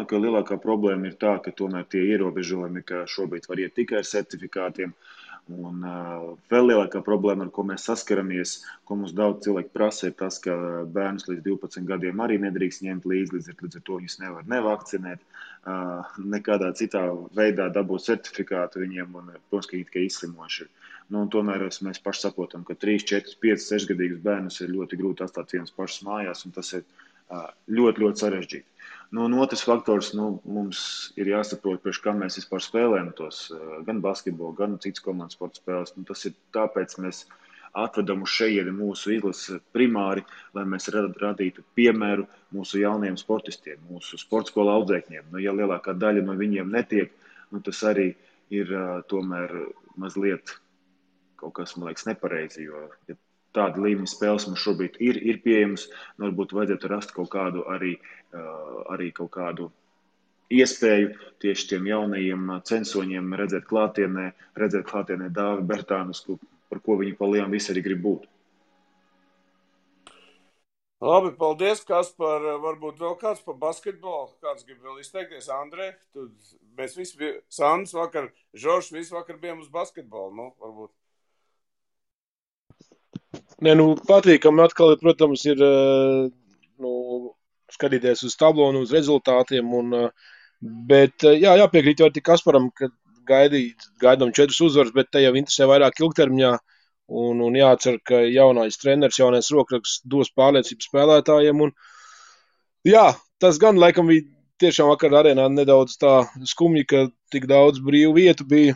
ka lielākā problēma ir tā, ka tomēr tie ierobežojumi, ka šobrīd var iet tikai ar certifikātiem. Un vēl lielākā problēma, ar ko mēs saskaramies, ko mums daudz cilvēku prasa, ir tas, ka bērnus līdz 12 gadiem arī nedrīkst ņemt līdz ar to viņus nevar nevakcinēt, nekādā citā veidā dabūt certifikātu viņiem, un, protams, ka viņi tikai izslimoši. Tomēr mēs paši saprotam, ka 3, 4, 5, 6 gadīgus bērnus ir ļoti grūti atstāt vienus pašus mājās, un tas ir ļoti, ļoti sarežģīti. Un otrs faktors, mums ir jāsaprot, priekš kā mēs vispār spēlējam tos gan basketbolu, gan citas komandas sporta spēles. Tas ir tāpēc mēs atvedam uz šejieni mūsu izlasi primāri, lai mēs radītu piemēru mūsu jaunajiem sportistiem, mūsu sportskola audzēkņiem. Ja lielākā daļa no viņiem netiek, tas arī ir tomēr mazliet kaut kas, man liekas, nepareizi, jo ja tāda līmeņa spēles mums šobrīd ir pieejamas, varbūt vajadzētu rast kaut kādu arī kaut kādu iespēju tieši tiem jaunajiem censoņiem redzēt klātienē Dāvi Bertānus, par ko viņi pa lielu visi arī grib būt. Labi, paldies, Kaspar. Varbūt vēl kāds par basketbolu, kāds grib vēl izteikties. Andrej, mēs visi, Sandrs vakar, Žoržs, visi vakar bijām uz basketbolu, varbūt. Patīkami atkal, protams, ir skatīties uz tablonu, uz rezultātiem, bet jāpiekrīt jau tik Kasparam, ka gaidām 4 uzvaras, bet te jau interesē vairāk ilgtermiņā, un jācer, ka jaunais treneris, jaunais rokraksts dos pārliecību spēlētājiem, tas gan laikam bija tiešām vakar arēnā nedaudz tā skumji, ka tik daudz brīvu vietu bija,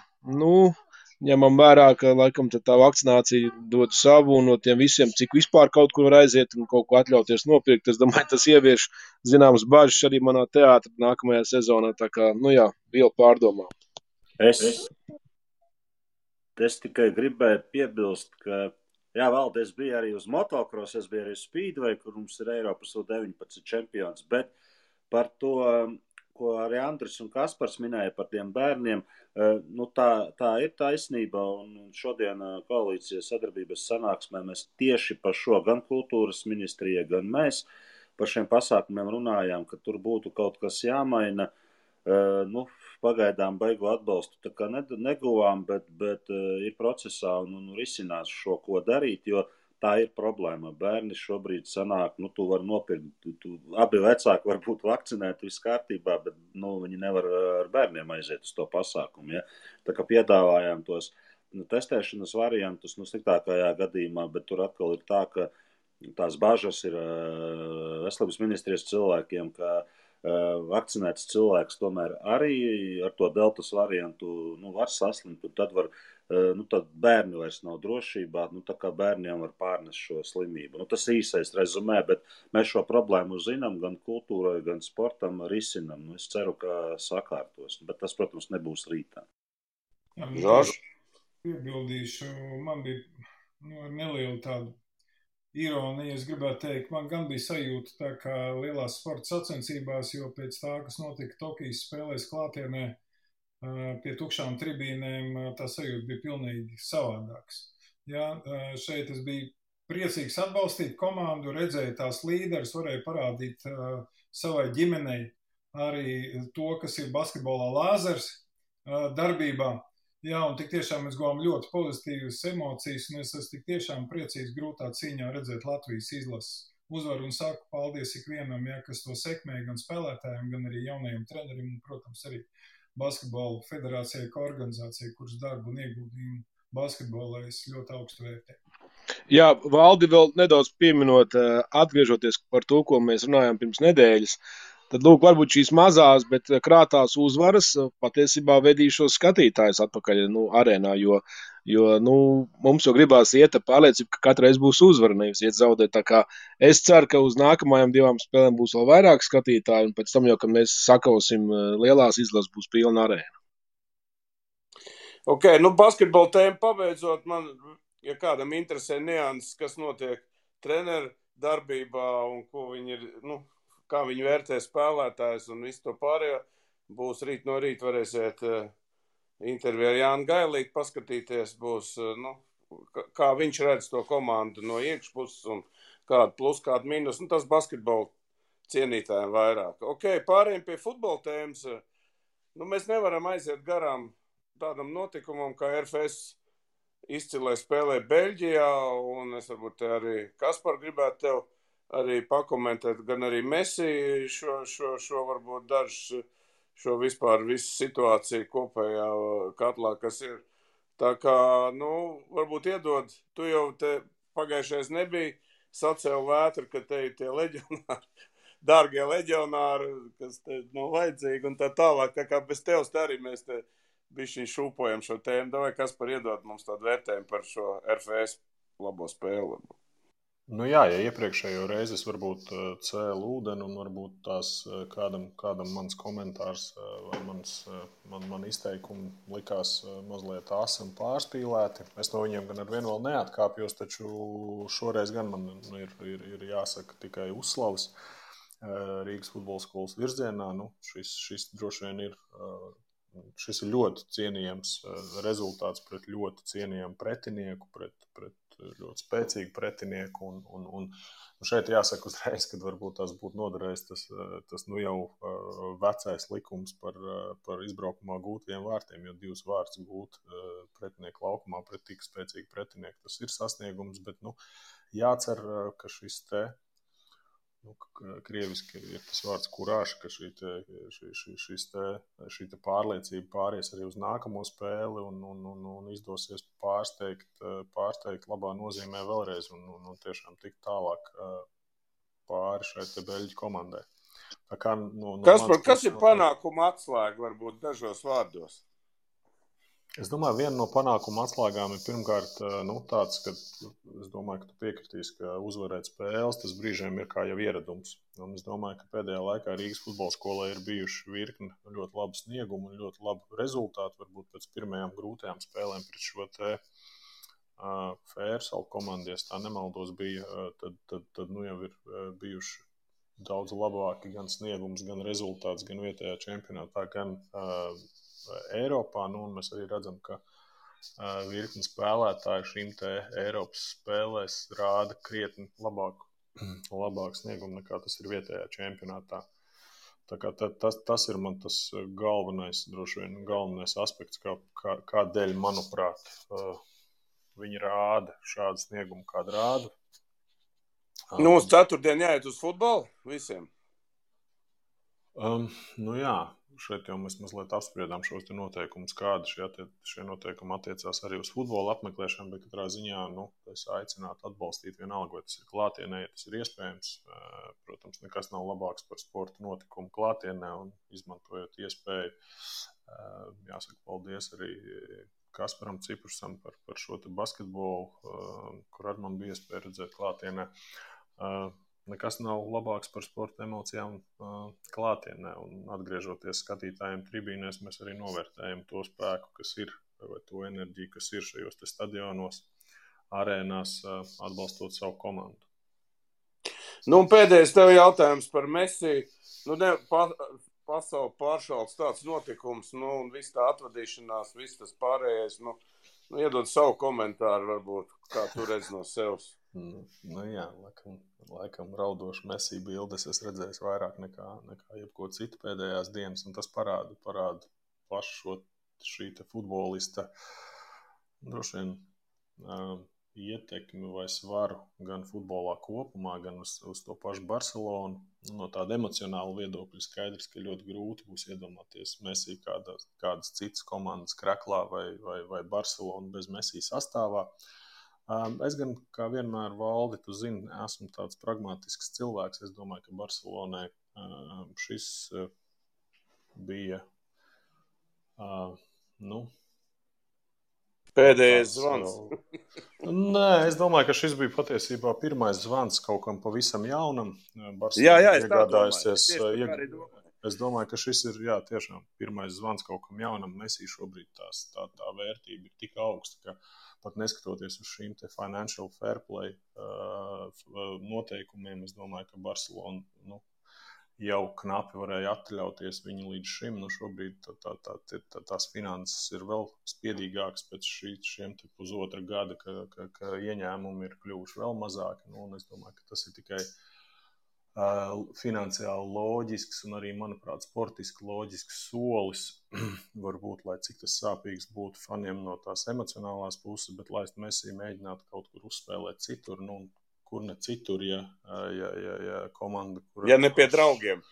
ņemam vērā, ka laikam tā vakcinācija dod savu, un no tiem visiem, cik vispār kaut kur var aiziet un kaut ko atļauties nopirkt, es domāju, tas ievieš zināmas bažas arī manā teātra nākamajā sezonā, tā kā, vēl pārdomā. Es tikai gribēju piebilst, ka, Valdi, es biju arī uz motocross, es biju arī Speedway, kur mums ir Eiropas 19 čempions, bet par to, ko arī Andris un Kaspars minēja par tiem bērniem, tā ir taisnība, un šodien koalīcijas sadarbības sanāksmē mēs tieši par šo gan kultūras ministrija, gan mēs par šiem pasākumiem runājām, ka tur būtu kaut kas jāmaina. Pagaidām beigu atbalstu tā kā neguvām, bet ir procesā un risinās šo, ko darīt, jo tā ir problēma. Bērni šobrīd sanāk, tu vari nopirkt, abi vecāki var būt vakcinēti, viss kārtībā, bet viņi nevar ar bērniem aiziet uz to pasākumu. Ja? Tā kā piedāvājām tos testēšanas variantus, sliktākajā gadījumā, bet tur atkal ir tā, ka tās bažas ir veselības ministrijas cilvēkiem, ka vakcinēts cilvēks tomēr arī ar to deltas variantu var saslimt, un tad var, tad bērni vairs nav drošībā, tā kā bērniem var pārnest šo slimību. Tas īsais rezumē, bet mēs šo problēmu zinām gan kultūrai, gan sportam risinam. Es ceru, ka sakārtos, bet tas, protams, nebūs rītā. Žorž? Piebildīšu, man bija neliela tāda ironija, es gribētu teikt, man gan bija sajūta tā kā lielās sporta sacensībās, jo pēc tā, kas notika Tokijas spēlēs klātienē pie tukšām tribīnēm, tā sajūta bija pilnīgi savādāks. Jā, šeit es biju priecīgs atbalstīt komandu, redzēju tās līderis, varēju parādīt savai ģimenei arī to, kas ir basketbolā lāzers darbībā. Jā, un tik tiešām mēs guvām ļoti pozitīvas emocijas, un es esmu tik tiešām priecīgs grūtā cīņā redzēt Latvijas izlases uzvaru, un saku paldies ikvienam, kas to sekmē, gan spēlētājiem, gan arī jaunajiem treneriem, un, protams, arī basketbola federācijai, kā organizācijai, kuras darbu un ieguldījumu basketbolā es ļoti augstu vērtēju. Jā, Valdi, vēl nedaudz pieminot, atgriežoties par to, ko mēs runājām pirms nedēļas, tad, lūk, varbūt šīs mazās, bet krātās uzvaras patiesībā vedīšos skatītājus atpakaļ arēnā, jo mums jau gribās iet ar pārliecību, ka katreiz būs uzvara, nevis iet zaudēt. Tā kā es ceru, ka uz nākamajām 2 spēlēm būs vēl vairāk skatītāju, un pēc tam jau, kad mēs sakausim lielās izlases, būs pilna arēna. Ok, basketbola tēmu pabeidzot, man, ja kādam interesē nianses, kas notiek treneru darbībā un ko viņi ir, kā viņi vērtē spēlētājs un visu to pārējo, būs rīt no rīta varēsiet interviju ar Jānu Gailīti paskatīties, būs, kā viņš redz to komandu no iekšpuses un kādu plus, kādu mīnus, tas basketbola cienītājiem vairāk. Ok, pārējiem pie futbola tēmas, mēs nevaram aiziet garām tādam notikumam, kā RFS izcilē spēlē Beļģijā, un es varbūt arī Kaspar gribētu tev arī pakomentēt, gan arī Messi šo varbūt dažs, šo vispār visu situāciju kopējā katlā, kas ir. Tā kā, varbūt iedod, tu jau te pagājušais nebija, sacēl vētru, ka te ir tie leģionāri, dārgie leģionāri, kas te nav vajadzīgi un tā tālāk. Tā kā bez tevs te arī mēs te bišķiņ šūpojam šo tēmu. Davai, Kaspar, iedod mums tādu vērtējumu par šo RFS labo spēli. Jā, ja iepriekšējo reizi es varbūt cēlu ūdeni un varbūt tās kādam mans komentārs vai man izteikumi likās mazliet asi un pārspīlēti. Es no viņiem gan ar vienu vēl neatkāpjos, taču šoreiz gan man ir jāsaka tikai uzslavas Rīgas futbola skolas virzienā. Šis droši vien šis ir ļoti cienījams rezultāts pret ļoti cienījamu pretinieku, pret ļoti spēcīgu pretinieku, un šeit jāsaka uzreiz, kad varbūt tās būtu noderējis tas jau vecais likums par izbraukumā gūtajiem vārtiem, jo 2 vārtus gūt pretinieku laukumā pret tik spēcīgu pretinieku, tas ir sasniegums, bet jācer, ka šis te krieviski ir tas vārds kurāša, ka šī pārliecība pāries arī uz nākamo spēli un izdosies pārsteigt labā nozīmē vēlreiz un tiešām tikt tālāk pāri šai te Beļģu komandai. Tā kā, kas ir panākuma atslēga varbūt dažos vārdos? Es domāju, viena no panākuma atslēgām ir pirmkārt tāds, ka es domāju, ka tu piekritīsi, ka uzvarēt spēles, tas brīžiem ir kā jau ieradums. Un es domāju, ka pēdējā laikā Rīgas futbola skolai ir bijuši virkni ļoti labu sniegumu un ļoti labu rezultātu. Varbūt pēc pirmajām grūtajām spēlēm pret šo te Fērsalu komandu, ja tā nemaldos bija, tad jau ir bijuši daudz labāki gan sniegums, gan rezultāts, gan vietējā čempionātā, gan Eiropā, un mēs arī redzam, ka virkni spēlētāji šīm te Eiropas spēlēs rāda krietni labāk sniegumu nekā tas ir vietējā čempionātā. Tā kā tas ir man tas droši vien galvenais aspekts, kādēļ, manuprāt, viņi rāda šādu sniegumu, kādu rāda. Uz ceturtdien jāiet uz futbolu visiem? Jā. šeit jau mēs mazliet apspriedām šos te noteikumus, kādi šie noteikumi attiecās arī uz futbola apmeklēšanu, bet katrā ziņā, es aicinātu atbalstīt vienalga, vai tas ir klātienē, ja tas ir iespējams. Protams, nekas nav labāks par sporta notikumu klātienē un izmantojot iespēju. Jāsaka paldies arī Kasparam Ciprušam par šo te basketbolu, kur ar man bija iespēja redzēt klātienē. Nekas nav labāks par sporta emocijām klātienē, un atgriežoties skatītājiem tribīnēs, mēs arī novērtējam to spēku, kas ir, vai to enerģiju, kas ir šajos te stadionos, arēnās, atbalstot savu komandu. Un pēdējais tev jautājums par Messi. Pasauli pāršalts tāds notikums, un viss tā atvadīšanās, viss tas pārējais, iedod savu komentāru varbūt, kā tu redz no sevs. Jā, laikam raudošu Messi bildes es redzēju vairāk nekā jebko citu pēdējās dienas, un tas parāda pašu šī te futbolista droši vien ietekmi vai svaru gan futbolā kopumā, gan uz to pašu Barcelonu. No tāda emocionāla viedokļa skaidrs, ka ļoti grūti būs iedomāties Messi kādas citas komandas kraklā vai Barcelonu bez Messi sastāvā. Es gan, kā vienmēr, Valdi, tu zini, esmu tāds pragmatisks cilvēks. Es domāju, ka Barcelonai šis bija, pēdējais zvans. Nē, es domāju, ka šis bija patiesībā pirmais zvans kaut kam pavisam jaunam. Jā, es tā domāju. Es domāju, ka šis ir, tiešām pirmais zvans kaut kam jaunam. Messi šobrīd tā vērtība ir tik augsta, ka pat neskatoties uz šīm te financial fair play noteikumiem, es domāju, ka Barcelona jau knapi varēja atļauties viņu līdz šim. Šobrīd tās finanses ir vēl spiedīgākas pēc šiem te pusotra gada, ka ieņēmumi ir kļuvuši vēl mazāki. Un es domāju, ka tas ir tikai finansiāli loģisks un arī, manuprāt, sportiski loģisks solis. Varbūt, lai cik tas sāpīgs būtu faniem no tās emocionālās puses, bet laist Messi mēģināt kaut kur uzspēlēt citur, kur ne citur, ja komanda... Ja ne pie draugiem.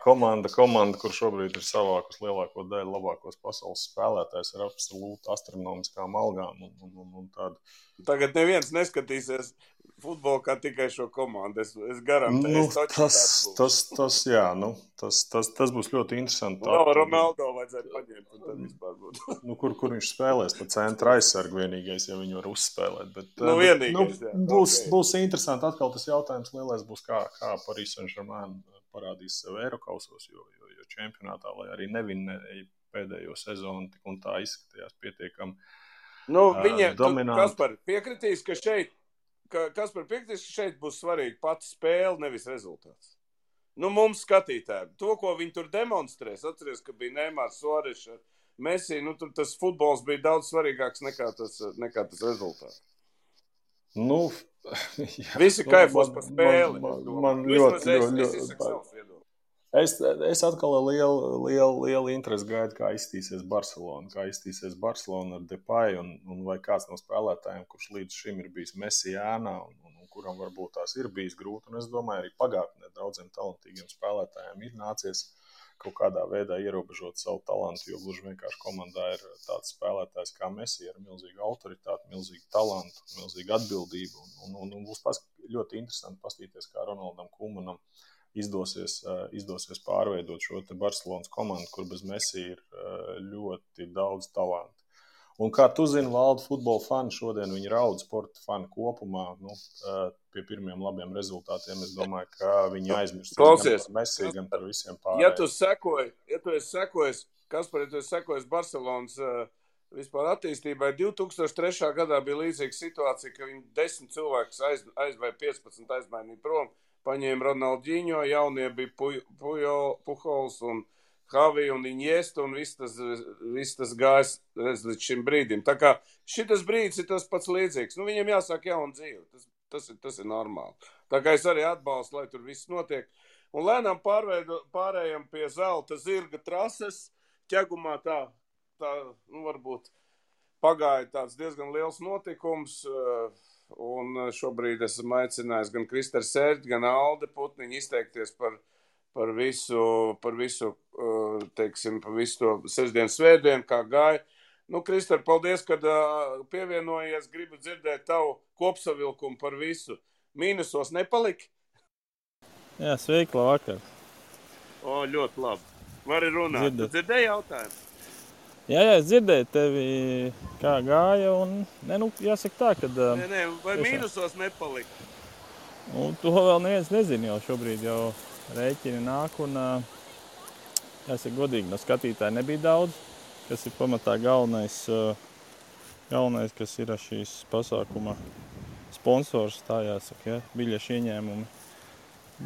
Komanda, kur šobrīd ir savākus lielāko daļu labākos pasaules spēlētājs ar absolūti astronomiskām algām un tādu. Tagad neviens neskatīsies futbolu kā tikai šo komandu. Es garantēju. Tas būs ļoti interesanti. Ronaldo vajadzētu paņemt un tad vispār būtu. Kur viņš spēlēs pa centra aizsargu vienīgais, ja viņu var uzspēlēt. Bet, vienīgais, būs interesanti. Atkal tas jautājums lielais būs, kā Paris Saint-Germain parādīs sev Eirokausos, jo čempionātā, lai arī nevinēja pēdējo sezonu, tik un tā izskatījās pietiekami dominanti. Kaspar piekritīs, ka šeit būs svarīgi pati spēle, nevis rezultāts. Mums skatītājiem. To, ko viņi tur demonstrēs, atceries, ka bija Neymars, Suareš, Messi, tur tas futbols bija daudz svarīgāks nekā tas rezultāts. Visi kaifos par spēli. Man ļoti. Es atkal lielu interesi gaidu, kā izstīsies Barcelona ar Depay un vai kāds no spēlētājiem, kurš līdz šim ir bijis Messi ēnā un kuram varbūt tās ir bijis grūti. Un es domāju, arī pagātnē daudziem talantīgiem spēlētājiem ir nācies kaut kādā veidā ierobežot savu talantu, jo gluži vienkārši komandā ir tāds spēlētājs kā Messi ar milzīgu autoritāti, milzīgu talantu, milzīgu atbildību. Un būs ļoti interesanti paskatīties, kā Ronaldam Koemanam izdosies pārveidot šo te Barcelonas komandu, kur bez Messi ir ļoti daudz talantu. Un kā tu zini, Valdi, futbola fani šodien viņi raud, sporta fani kopumā, pie pirmiem labiem rezultātiem. Es domāju, ka viņi aizmirst gan par Messi, gan par visiem pārējiem. Ja tu esi sekojis Barcelonas vispār attīstībai, 2003. gadā bija līdzīga situācija, ka viņi 10 cilvēkus vai 15 aizmainīja prom, paņēma Ronaldinho, jaunie bija Pujols un Javi un Iniesta, un viss tas gājis līdz šim brīdim. Tā kā šitas brīdis ir tas pats līdzīgs. Viņiem jāsāk jauna dzīve. Tas ir normāli. Tā kā es arī atbalstu, lai tur viss notiek. Un lēnām pārējām pie zelta zirga trases. Ķegumā tā varbūt pagāja tāds diezgan liels notikums. Un šobrīd esmu aicinājis gan Kristers Sērģi, gan Alde Putniņu izteikties par visu teiksim, pa visu to sestdienu, svētdienu, kā gāja. Nu, Krister, paldies, kad pievienojies. Gribu dzirdēt tavu kopsavilkumu par visu. Mīnusos nepalika? Jā, sveiki, labvakar. O, ļoti labi. Vari runāt. Tu dzirdēji jautājumu? Jā, es dzirdēju tevi, kā gāja, un, jāsaka tā, kad... Vai mīnusos nepalika? Un to vēl neviens nezina jau šobrīd, jau rēķini nāk, un, jāsaka godīgi, no skatītāji nebija daudz, kas ir pamatā galvenais, kas ir šīs pasākuma sponsors, tā jāsaka, ja, biļešu ieņēmumi.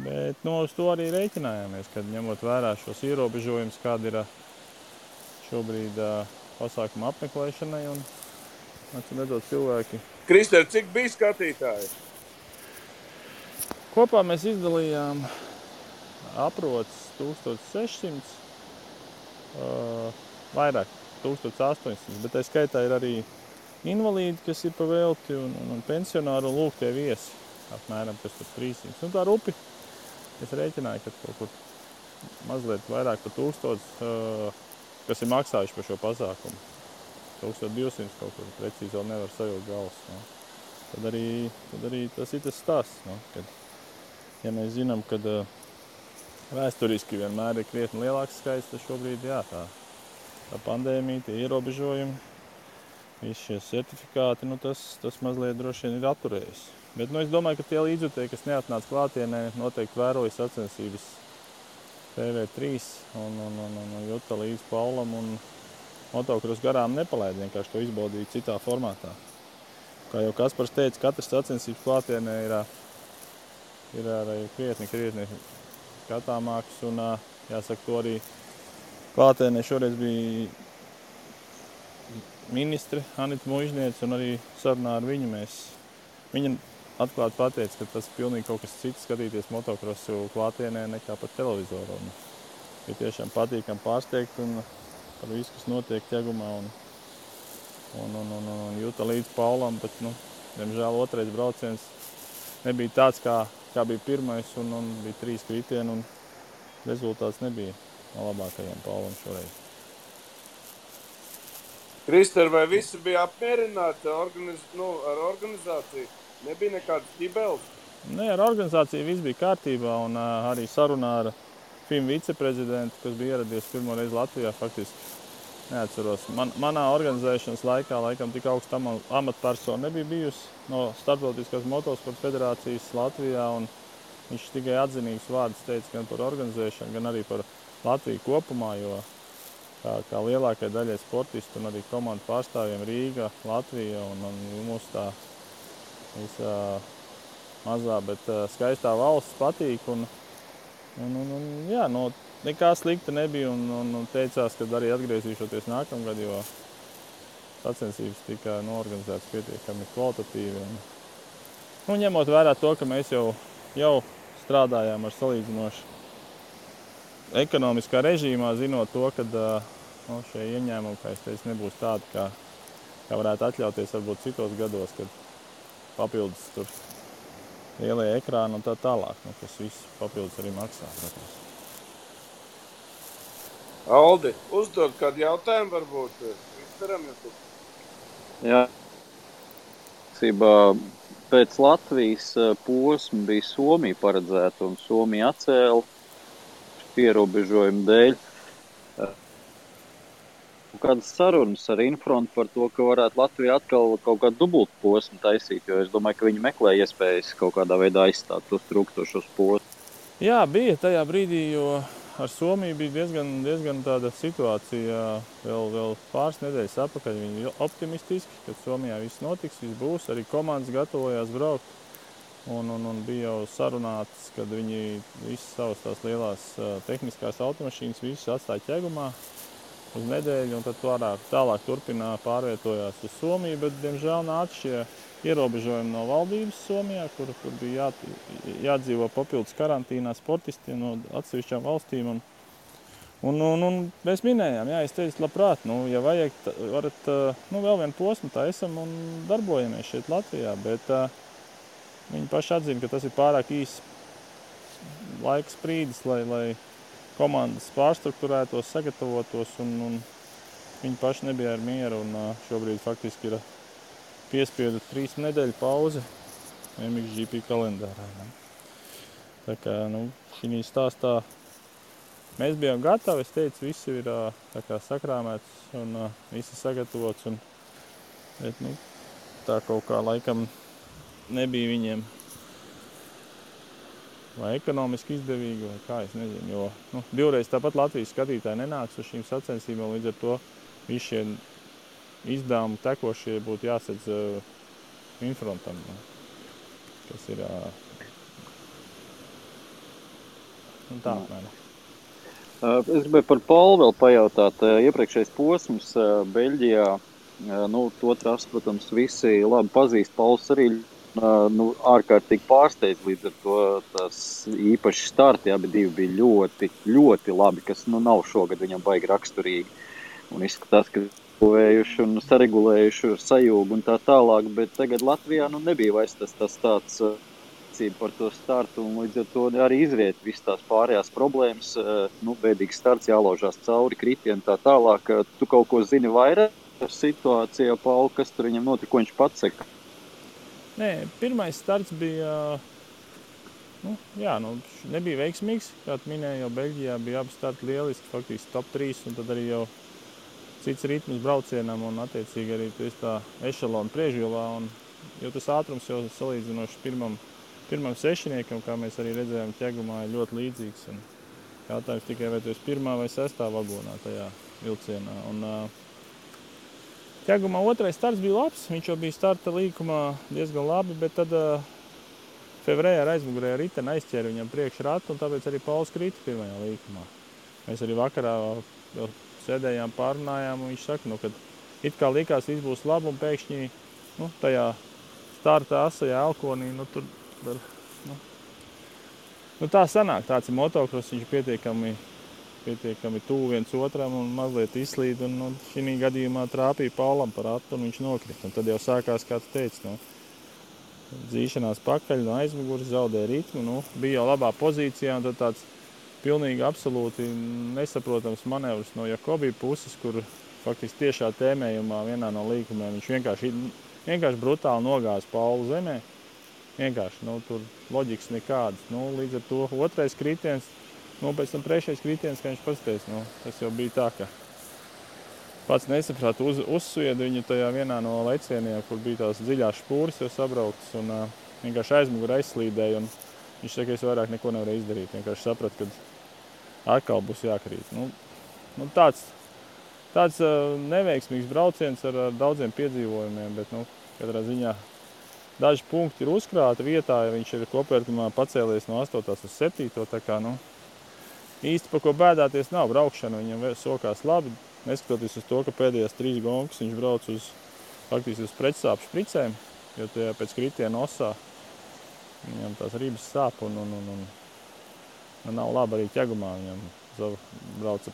Bet, uz to arī rēķinājāmies, kad ņemot vērā šos ierobežojumus, kāda ir šobrīd pasākuma apmeklēšanai un redzot cilvēki. Krister, cik bija skatītāji? Kopā mēs izdalījām aprots 1600, vairāk 1800, bet tā skaitā ir arī invalīdi, kas ir pa velti un pensionāri un lūk tie viesi, apmēram 300. Un tā rupi, es rēķināju, ka kaut kur mazliet vairāk par 1000, kas ir maksājuši par šo pasākumu. 1200 kaut kur precīzi vēl nevar sajūt galvas. No. Tad arī tas ir tas stāsts. No, kad, ja mēs zinām, ka vēsturiski vienmēr ir krietni lielāks skaits, tad šobrīd jā, tā pandēmija, tie ierobežojumi, visi šie certifikāti, tas mazliet droši vien ir atturējis. Bet es domāju, ka tie līdzjutēji, kas neatnāca klātienē, noteikti vēroja sacensības TV3 un juta līdz Paulam un motokros garām nepalaid, vienkārši to izbaudīja citā formātā. Kā jau Kaspars teica, katrs sacensības klātienē ir arī krietni skatāmāks un jāsaka to arī klātienē šoreiz bija ministre Anita Muižniece un arī sarunā ar viņu viņa atklāti pateica, ka tas ir pilnīgi kaut kas cits skatīties motokrosu klātienē nekā par televizoru. Ir tiešām patīkam pārsteigt un par visu, kas notiek ķegumā un jūta līdz Paulam, bet, diemžēl otrais brauciens nebija tāds, kā bija pirmais un bija 3 kritieni un rezultāts nebija no labākajiem Paulam šoreiz. Krister, vai visi bija apmierināti ar organizāciju? Nebija nekādas ķibeles? Ar organizāciju viss bija kārtībā un arī sarunā ar FIM viceprezidentu, kas bija ieradies pirmo reizi Latvijā, faktiski neatceros. Manā organizēšanas laikam tik augsta amatpersona nebija bijusi no Starptautiskās motosporta federācijas Latvijā, un viņš tikai atzinīgs vārds teica gan par organizēšanu, gan arī par Latviju kopumā, jo kā lielākai daļai sportistu un arī komandu pārstāvjiem Rīga, Latvija un mūsu tā visā mazā, bet skaistā valsts patīk un jā, nekā slikta nebija un teicās, ka arī atgriezīšoties nākamgad, jo sacensības tika norganizētas pietiekami kvalitatīvi. Ņemot vērā to, ka mēs jau strādājām ar salīdzinoši ekonomiskā režīmā, zinot to, ka šie ieņēmumi, kā es teicu, nebūs tādi, kā varētu atļauties varbūt citos gados, kad papildus tur lielie ekrāni un tā tālāk, kas viss papildus arī maksā. Protams. Aldi, uzdod kādu jautājumu varbūt Kristeram? Jā. Pēc Latvijas posma bija Somija paredzēta un Somija atcēla ierobežojumu dēļ. Kādas sarunas ar Infrontu par to, ka varētu Latvija atkal kaut kādu dubultu posmu taisīt, jo es domāju, ka viņi meklē iespējas kaut kādā veidā aizstāt tos trūkstošos posmus. Jā, bija tajā brīdī, jo ar Somiju bija diezgan tāda situācija vēl pāris nedēļas atpakaļ. Viņi bija optimistiski, kad Somijā viss notiks, viss būs, arī komandas gatavojās braukt. Un bija jau sarunāts, kad viņi visas savas tās lielās tehniskās automašīnas visas atstāja ķegumā uz nedēļu, un tad tālāk pārvietojās uz Somiju, bet, diemžēl, nāca šie ierobežojumi no valdības Somijā, kur bija jādzīvo papildus karantīnā sportistiem no atsevišķām valstīm. Un mēs minējām, es teicu, labprāt, ja vajag, varat vēl vienu posmu taisam un darbojamies šeit Latvijā, bet viņi paši atzina, ka tas ir pārāk īsts laiks brīdis, lai komandas pārstruktūrētos, sagatavotos, un viņi paši nebija ar mieru, un šobrīd faktiski ir piespiedu 3 nedēļu pauze MXGP kalendārā. Ne? Tā kā, šī stāstā mēs bijām gatavi, es teicu, viss ir tā kā sakrāmēts un viss ir sagatavots, bet, tā kaut kā laikam nebija viņiem vai ekonomiski izdevīgi, vai kā, es nezinu, jo divreiz tāpat Latvijas skatītāji nenāks uz šīm sacensībām, līdz ar to visi šie izdevumi tekošie būtu jāsedz Infrontam, kas ir tā apmēram. Es gribēju par Paulu vēl pajautāt. Iepriekšējais posms Beļģijā, to trasu, protams, visi labi pazīst. Pauls arī ārkārtīgi pārsteidz, līdz ar to tās īpaši starti, abi divi bija ļoti, ļoti labi, kas nav šogad viņam baigi raksturīgi. Un izskatās, ka vējuši un saregulējuši ar sajūgu un tā tālāk, bet tagad Latvijā nebija vairs tas tāds par to startu, un līdz ar to arī izriet visas tās pārējās problēmas, bēdīgs starts, jālaužās cauri, kritieni tā tālāk. Tu kaut ko zini vairāk par situāciju, Pauli, kas tur viņam notika, ko viņš pats saka? Nē, pirmais starts bija, nebija veiksmīgs, kā tu minēji, jau Beļģijā bija abi starti lieliski, faktiski top 3, un tad arī jau cits ritms braucienam, un attiecīgi arī tu esi tā ešalona priekšvilā, un jo tas ātrums jau salīdzinoši pirmam sešiniekam, kā mēs arī redzējām ķegumā, ir ļoti līdzīgs. Un jautājums tikai, vai tu esi 1. vai 6. vagonā tajā vilcienā. Un ķegumā otrais starts bija labs, viņš jau bija starta līkumā diezgan labi, bet tad Fevrē ar aizmugurēju riteni aizķēra viņam priekšratu, un tāpēc arī Pauls krita pirmajā līkumā. Mēs arī vakarā vēl sēdējām, pārunājām, un viņš saka, kad it kā likās, viss būs labi, un pēkšņi tajā starta asajā elkonī, tur tā sanāk, tāds ir motokross, viņš pietiekami tuvu viens otram un mazliet izslīd, un šī gadījumā trāpīja Paulam par atu, un viņš nokrita. Un tad jau sākās, kā tu teici, dzīšanās pakaļ no aizmuguras, zaudēja ritmu, bija jau labā pozīcijā, un tad tāds pilnīgi absolūti nesaprotams manevrs no Jakobi puses, kur faktiski tiešā tēmējumā vienā no līkumiem viņš vienkārši brutāli nogāza Paulu zemē. Vienkārši, tur loģikas nekādas. Līdz ar to otrais kritiens, pēc tam trešais kritiens, kā viņš pasteic, tas jau bija tā, ka pats nesaprāt, uzsvieda viņu tajā vienā no lecieniem, kur bija tās dziļās špūras jau sabrauktas, un vienkārši aizmugurē aizslīdēja, un viņš saka, es vairāk neko nevarēju izdarīt. Vienkārši saprat, ka atkal būs jākrīt. Tāds neveiksmīgs brauciens ar daudziem piedzīvojumiem, bet, katrā ziņā daži punkti ir uzkrāti vietā, ja viņš ir kopvērtumā pacēlies no 8. uz 7. Tā kā, īsti par ko bēdāties nav. Braukšana viņam sokās labi, neskatoties uz to, ka pēdējās 3 gonkas viņš brauc faktiski uz pretsāpju špricēm, jo tajā pēc kritiena osā viņam tās ribas sāp un nav labi arī ķegumā. Viņam brauca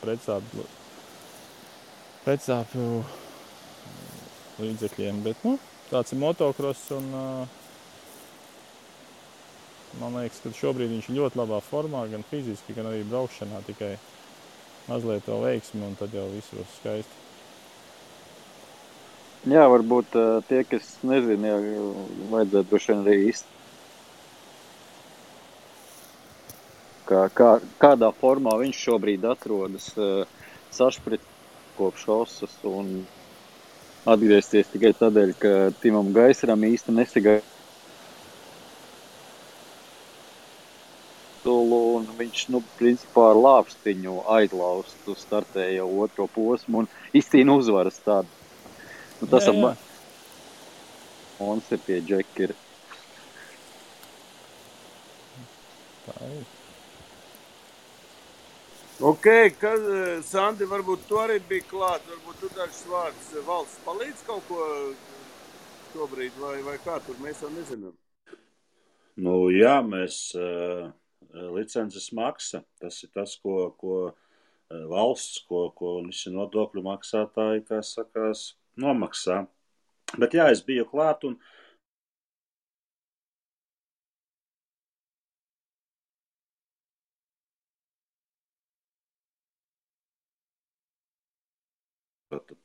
pretsāpju līdzekļiem, bet, tāds ir motokross, un man liekas, ka šobrīd viņš ir ļoti labā formā, gan fiziski, gan arī braukšanā, tikai mazliet vēl veiksmi, un tad jau viss būs skaisti. Jā, varbūt tie, kas nezina, vajadzētu droši vien arī kādā formā viņš šobrīd atrodas sašprit kopš osas, un atgriezties tikai tādēļ, ka Timam Gaisaram īsti nesagāja. Un viņš, principā ar lāpstiņu aizlaustu startēja jau otro posmu un izcīna uzvaras tādu. Tas jā. Un ir tie džekiri. Tā ir. Ok, Sandi, varbūt tu arī bija klāt, varbūt tu dažs vārds valsts palīdz kaut ko šobrīd, vai kā tur, mēs jau nezinām. Jā, mēs licences maksa, tas ir tas, ko valsts, ko visi nodokļu maksātāji, kā sakās, nomaksā. Bet jā, es biju klāt un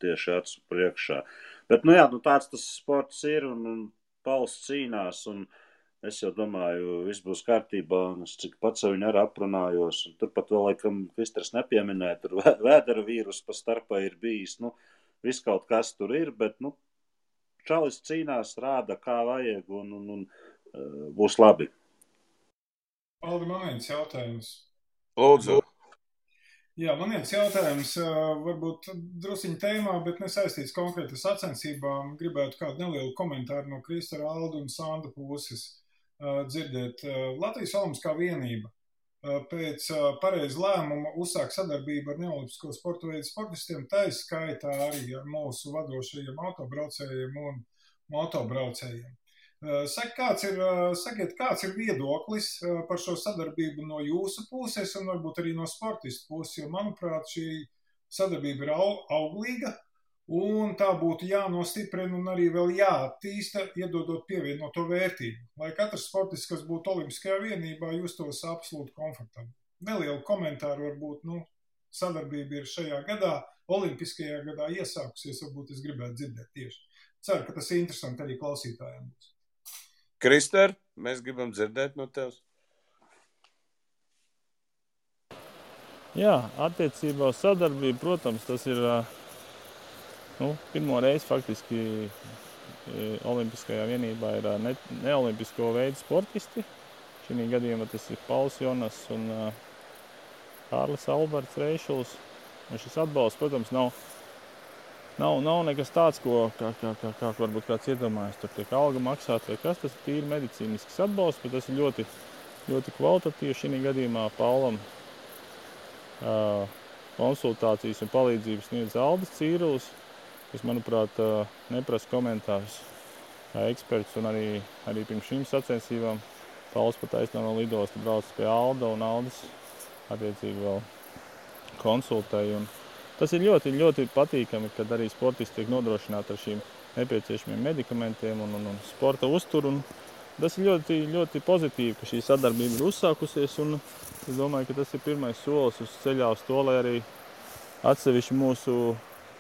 tieši acu priekšā. Bet, nu jā, nu tāds tas sports ir, un Pauls cīnās, un es jau domāju, viss būs kārtībā, un es cik pats viņu arī aprunājos, un turpat vēl, laikam, Kristers nepieminēja, tur vēdera vīrus pa starpā ir bijis, nu, viss kaut kas tur ir, bet, nu, čalis cīnās, rāda, kā vajag, un būs labi. Aldi, man viens jautājums. Lūdzu. Jā, man viens jautājums, varbūt drusiņa tēmā, bet nesaistīts konkrēti sacensībām. Gribētu kādu nelielu komentāru no Kristera, Alda un Sanda puses dzirdēt. Latvijas Olimpiskā vienība pēc pareiza lēmuma uzsāk sadarbību ar neolimpisko sporta veidu sportistiem, tā skaitā arī ar mūsu vadošajiem autobraucējiem un motobraucējiem. Sakiet, kāds ir viedoklis par šo sadarbību no jūsu puses un varbūt arī no sportistu puses, jo, manuprāt, šī sadarbība ir auglīga un tā būtu jānostiprina un arī vēl jāattīsta, iedodot pievienoto vērtību. Lai katrs sportists, kas būtu Olimpiskajā vienībā, justos absolūti komfortabli. Nelielu komentāru varbūt, sadarbība ir šajā gadā, Olimpiskajā gadā iesākusies, varbūt es gribētu dzirdēt tieši. Ceru, ka tas ir interesanti arī klausītājiem būs. Krister, mēs gribam dzirdēt no tevis. Jā, attiecībā uz sadarbību, protams, tas ir pirmo reizi faktiski Olimpiskajā vienībā ir neolimpisko veidu sportisti. Šī gadījumā tas ir Pauls Jonas un Kārlis Alberts Reišuls. Un šis atbalsts, protams, nav nekas tāds, kā varbūt kāds iedomājas, tur tiek alga maksāt vai kas, tas ir tīri medicīnisks atbalsts, bet tas ir ļoti, ļoti kvalitatīvi. Šī gadījumā Paulam konsultācijas un palīdzības sniedz Aldis Cīrulis, kas, manuprāt, neprasa komentārus kā eksperts, un arī pirms šīm sacensībām Pauls pat aizstāv no lidosta brauc pie Alda, un Aldis attiecīgi vēl konsultēja. Tas ir ļoti, ļoti patīkami, kad arī sportisti tiek nodrošināti ar šīm nepieciešamiem medikamentiem un sporta uzturu. Tas ir ļoti, ļoti pozitīvi, ka šī sadarbība ir uzsākusies, un es domāju, ka tas ir pirmais solis uz ceļā uz to, lai arī atsevišķi mūsu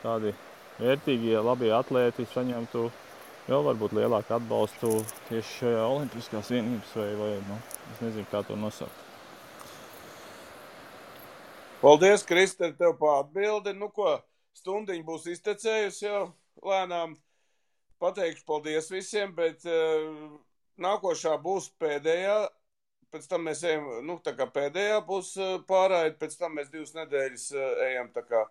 tādi vērtīgie, labie atlēti saņemtu vēl varbūt lielāku atbalstu tieši šajā Olimpiskās vienības vai es nezinu, kā to nosaukt. Paldies, Krister, tev pa atbildi. Stundiņa būs iztecējusi jau lēnām. Pateikšu paldies visiem, bet nākošā būs pēdējā. Pēc tam mēs ejam, tā kā pēdējā būs pārraide, pēc tam mēs 2 nedēļas ejam tā kā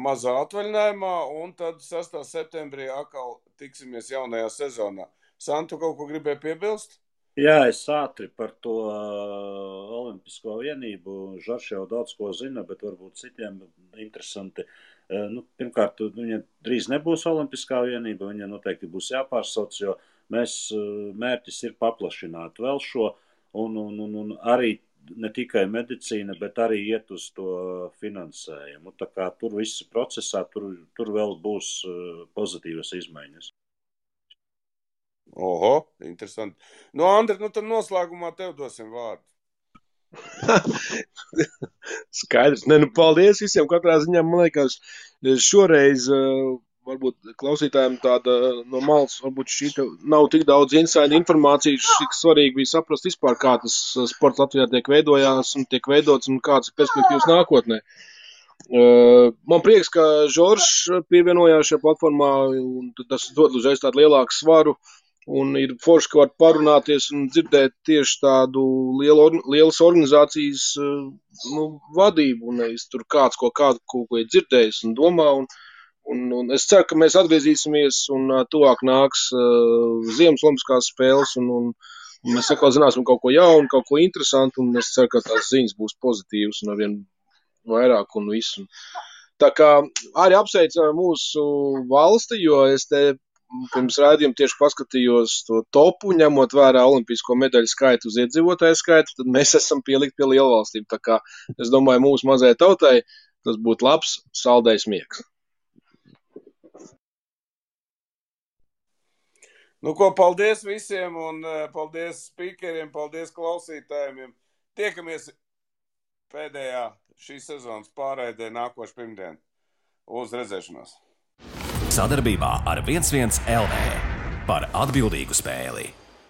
mazā atvaļinājumā, un tad 6. septembrī atkal tiksimies jaunajā sezonā. Santu, kaut ko gribēja piebilst? Jā, es ātri par to Olimpisko vienību. Žarš jau daudz ko zina, bet varbūt citiem interesanti. Pirmkārt, viņa drīz nebūs Olimpiskā vienība, viņa noteikti būs jāpārsauc, jo mērķis ir paplašināt vēl šo, un arī ne tikai medicīna, bet arī iet uz to finansējumu. Tā kā tur viss procesā, tur vēl būs pozitīvas izmaiņas. Oho, interesanti. Andri, tad noslēgumā tev dosim vārdu. Skaidrs. Paldies visiem. Katrā ziņā, man liekas, šoreiz varbūt klausītājiem tāda no malas, varbūt šī nav tik daudz inside informācijas, cik svarīgi bija saprast vispār, kā tas sports Latvijā tiek veidojās un tiek veidots un kādas perspektīvas nākotnē. Man prieks, ka Žoržs pievienojās šajā platformā, un tas dod uzreiz tādu lielāku svaru. Un ir forši, ka var parunāties un dzirdēt tieši tādu lielas organizācijas vadību, un nevis tur kāds ko ir dzirdējis un domā. Un es ceru, ka mēs atgriezīsimies un tuvāk nāks Ziemas Olimpiskās spēles, un mēs atkal zināsim kaut ko jaunu, kaut ko interesantu, un es ceru, ka tās ziņas būs pozitīvas un arvien vairāk un visu. Tā kā arī apsveicu mūsu valsti, jo es te pirms raidījuma tieši paskatījos to topu, ņemot vērā olimpisko medaļu skaitu uz iedzīvotāju skaitu, tad mēs esam pielikt pie lielvalstīm. Tā kā es domāju, mūsu mazajai tautai tas būtu labs saldējs miegs. Paldies visiem un paldies speakeriem, paldies klausītājiem. Tiekamies pēdējā šīs sezonas pārraidē nākošu pirmdienu. Uz redzēšanos! Sadarbībā ar 11 LV par atbildīgu spēli.